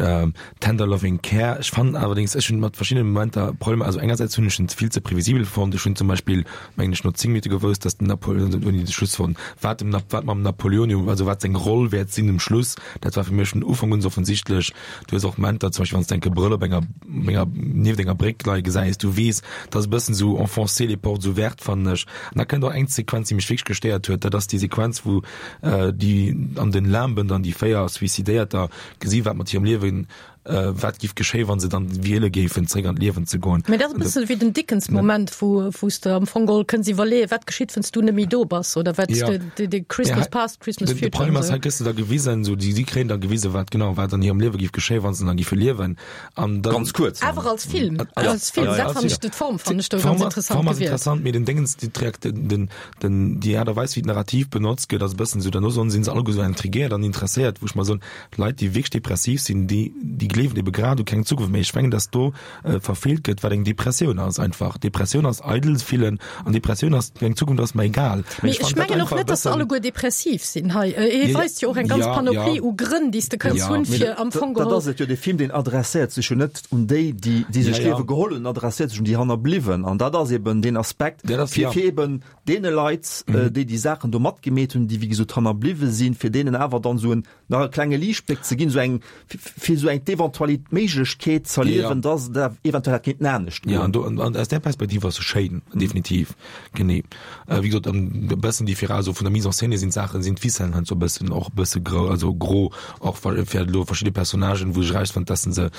tender loving care. Ech fannen allerdéngs, ech hunn mat verschiddene Momenter Problemer. Also engersäits hunn ech en vill ze previsibel fonnt. Ech hunn zum Beispill, mengen ech, no 10 Minutte gewousst, dass den Napoleon, ouni de Schluss fonnt, wat dem, wat mam Napoleon, also wat seng Roll wäert sinn um Schluss. Dat war fir mech vun Ufank un offensichtlech. Du hues och Momenter, zum Beispill wann s de enke Brëll op enger, enger, nieft enger Bréck leie gesäis, du weess, dat ass e bëssen esou enfoncer les portes ouvertes, fannen ech. An da kënnt och eng Sequenz, déi mech wierklech gestéiert huet, dat ass déi Sequenz, wou déi an den Limben dann déi 4 Suicidéierter gesi wat mat hirem Liewen, wat giff geschéien, wa se dann wiele géifen, zréck an d'Liewen ze goen. Mä dat ass e bësse wéi den Dickens-Moment, wou wou s de am Fong geholl kënns iwwerleeën, wat geschitt, wann s du net méi do bass oder wat de de Christmas past, Christmas future. De Problem ass, hei gëss de da gewisen, esou déi si kréien da gewisen, wat genau wat an hirem Liewe giff geschéien, wa se dann giffe liewen. An dann, Ganz kuerz. Awer als Film, als Film, dat fannen ech, d'Form fannen ech do ganz interessant D'Form ass interessant, mee den Dingens, déi d'Reakt, den, den, déi Aart a Weis, wéi d'Narrativ benotzt gëtt, ass e bëssen esou, derno soen, sinn se alleguer esou intriguéiert an interesséiert, wou ech mer soen, Leit, déi wierklech depressiv sinn, déi, déi gleewen ebe grad u keng Zukunft méi. Ech mengen, dass do verfeelt gëtt, wat eng Depressioun ass einfach. Depressioun ass eidel fillen an Depressioun ass, eng Zukunft ass mer egal. Mee ech mengen och net, dass se alleguer depressiv sinn hei. Hie weist jo och eng ganz Panoplie u Grënn, déi s de kënns hunn, fir am Fong geholl. Dat ass et jo, dee Film, deen adresséiert sech jo net un déi, déi déi sech d'Liewe geholl hunn, en adresséiert sech un déi Hannerbliwwen. An dat ass eben deen Aspekt, fir fir eben deene Leit, déi déi Saachen do matgemeet hunn, déi wéi gesot hannerbliwwe sinn, fir deenen awer dann esou en nach e klenge Liichtbléck ze ginn, esou eng, fir esou eng d'Eventualit-, d'Méiglechkeet z'erliewen, dass et awer eventuell hätt kéinten anescht goen. Ja, an do, an aus där Perspektiv ass se schéin, definitiv, genee. Wéi gesot, an e bëssen déi also vun der Mise en scène sinn d'Saachen, sinn d'Ficellen heiansdo e bëssen, och e bësse gro, also gro, och fir elo verschidde Personnagen, wou ech erausfannen, dass se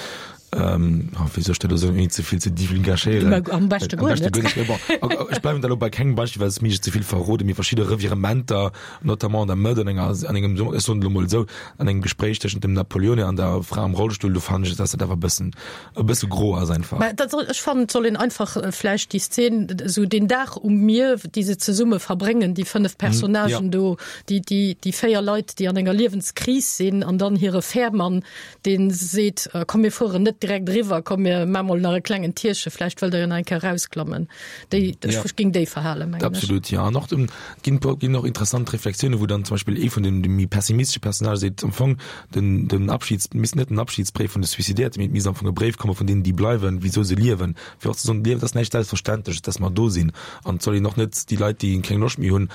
Ähm, oh, wéi soll ech dat elo soen, ouni ze vill ze divulgachéieren? Mä am beschte guer net. Mee bon, ech bleiwen da elo bei kengem Beispill, well et mir ze vill verroden, mee verschidde Revirementer, notamment an der Mëtt an enger, an engem, ech soen et elo mol esou, an engem Gespréich tëschent dem Napoleone an der Fra am Rollstull, do fannen ech, dass dat awer e bëssen, e bësse gro ass einfach. Mä dat soll, ech fannen, et soll een einfach vläicht déi Szen, esou deen Dag um Mier, déi se zesumme verbréngen, déi 5 Personnagen do, déi, déi, déi 4 Leit, déi an enger Liewenskris sinn an dann hire Fährmann, Deen seet, Komm mir fueren net direkt eriwwer, komm mir maa mol nach e klengen Tierche, vläicht wëllt der jo nach eng Kéier erausklammen. Déi, ech ja. ging déi verhalen, mengen ech. Absolut, ja. An och dem, ginn, ginn och interessant Reflexiounen, wou dann zum Beispill ee vun den, de méi pessimistesche Personnage seet, am Fong, den, den Abschieds, misst net den Abschiedsbréif vun de Suicidéierte, mee et misst am Fong e Bréif komme vun deenen, déi bleiwen, wisou se liewen, fir och ze soen, d'Liewen, et ass näischt Selbstverständleches, dass mer do sinn. An et soll een och net déi Leit, déi keng Loscht méi hunn,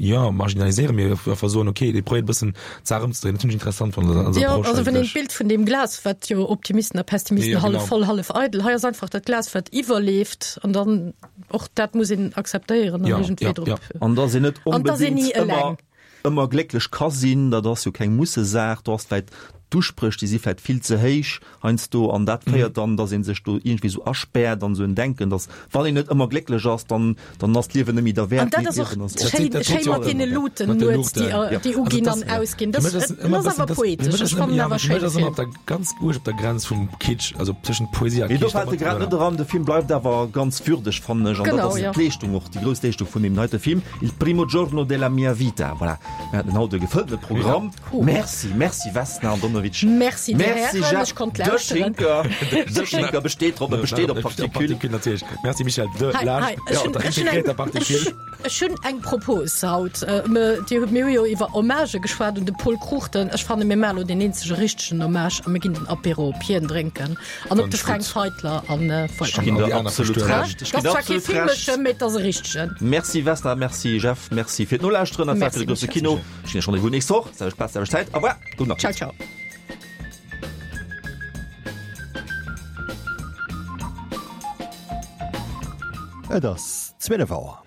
jo marginaliséiere mir einfach soen okay dee probéiert e bëssen d'Saach ëmzedréinen. Dat hunn ech interessant fonnt an der Jo, Approche also wann een eigentlech. d'Bild vun deem Glas, wat jo optimistesch. Optimisten a Pessimisten, Ja, hallef genau. voll, hallef eidel. Hei ass einfach dat Glas, wat iwwerleeft an dann och dat muss een akzeptéieren an Ja, iergendwéi ja, drop. ja. An dass een net An dass een onbedéngt ni ëmmer eleng. ëmmer glécklech ka sinn, dat ass jo keng Mussesaach. Do ass vläit d'Uspréch, déi si vläit vill ze héich heiansdo an dat féiert dann, dass ee sech do iergendwéi esou aspäert an esou en Denken, dass wann een net ëmmer glécklech ass, dann dann ass d'Liewen net méi An derwäert. dat Nee, ass och d'Liewen ass och. schéin, schéin mat deene Luuten nuets, déi, déi uginn an ausginn. Dat ass awer poetesch. Ech fannen awer schéin de Film. Film. Ganz uerg op der Grenz vum Kitsch, also tëschent Poesie a Mee do Kitsch. fält e grad net eran. De Film bleift awer ganz würdeg, fannen ech. An dat Genau, ass jo. d'Leeschtung och, déi grouss Leeschtung vun deem heite Film, Il primo giorno della mia vita. Voilà, mir haten haut e gefëllene Programm. Merci, merci Vesna Andonovic. Merci dir Merci Hären, Jeff ech konnt De lauschteren. Schinker. De Schinker besteet drop, e besteet op Particule. Particule natierlech. Merci Michel. De Hei, Laascht hei, ech hunn, ech hunn eng, integréierter Particule. ech, ech hunn eng Propos haut. Mir, Dir hutt, mir hu jo iwwer Hommagë geschwat un de Pol Cruchten. Ech fanne mir maache lo deen eenzege richtegen Hommage a mir ginn den Apéro op hien drénken an op de Fränk Feitler an Ech ginn voilà. der absolut Recht. Ech Dat ginn der ass zwar kee absolut Recht. filmeschen, mee et ass e richtegen. Merci Vesna, merci Jeff, merci fir d'Nolauschteren. Dat war fir Merci de grousse Michel. Kino. Ech ginn iech Rendez-vous nächst Woch, selwecht Plaz, selwecht Zäit. Au revoir, gudden Ciao, Appetit. ciao. Et ass 12 Auer.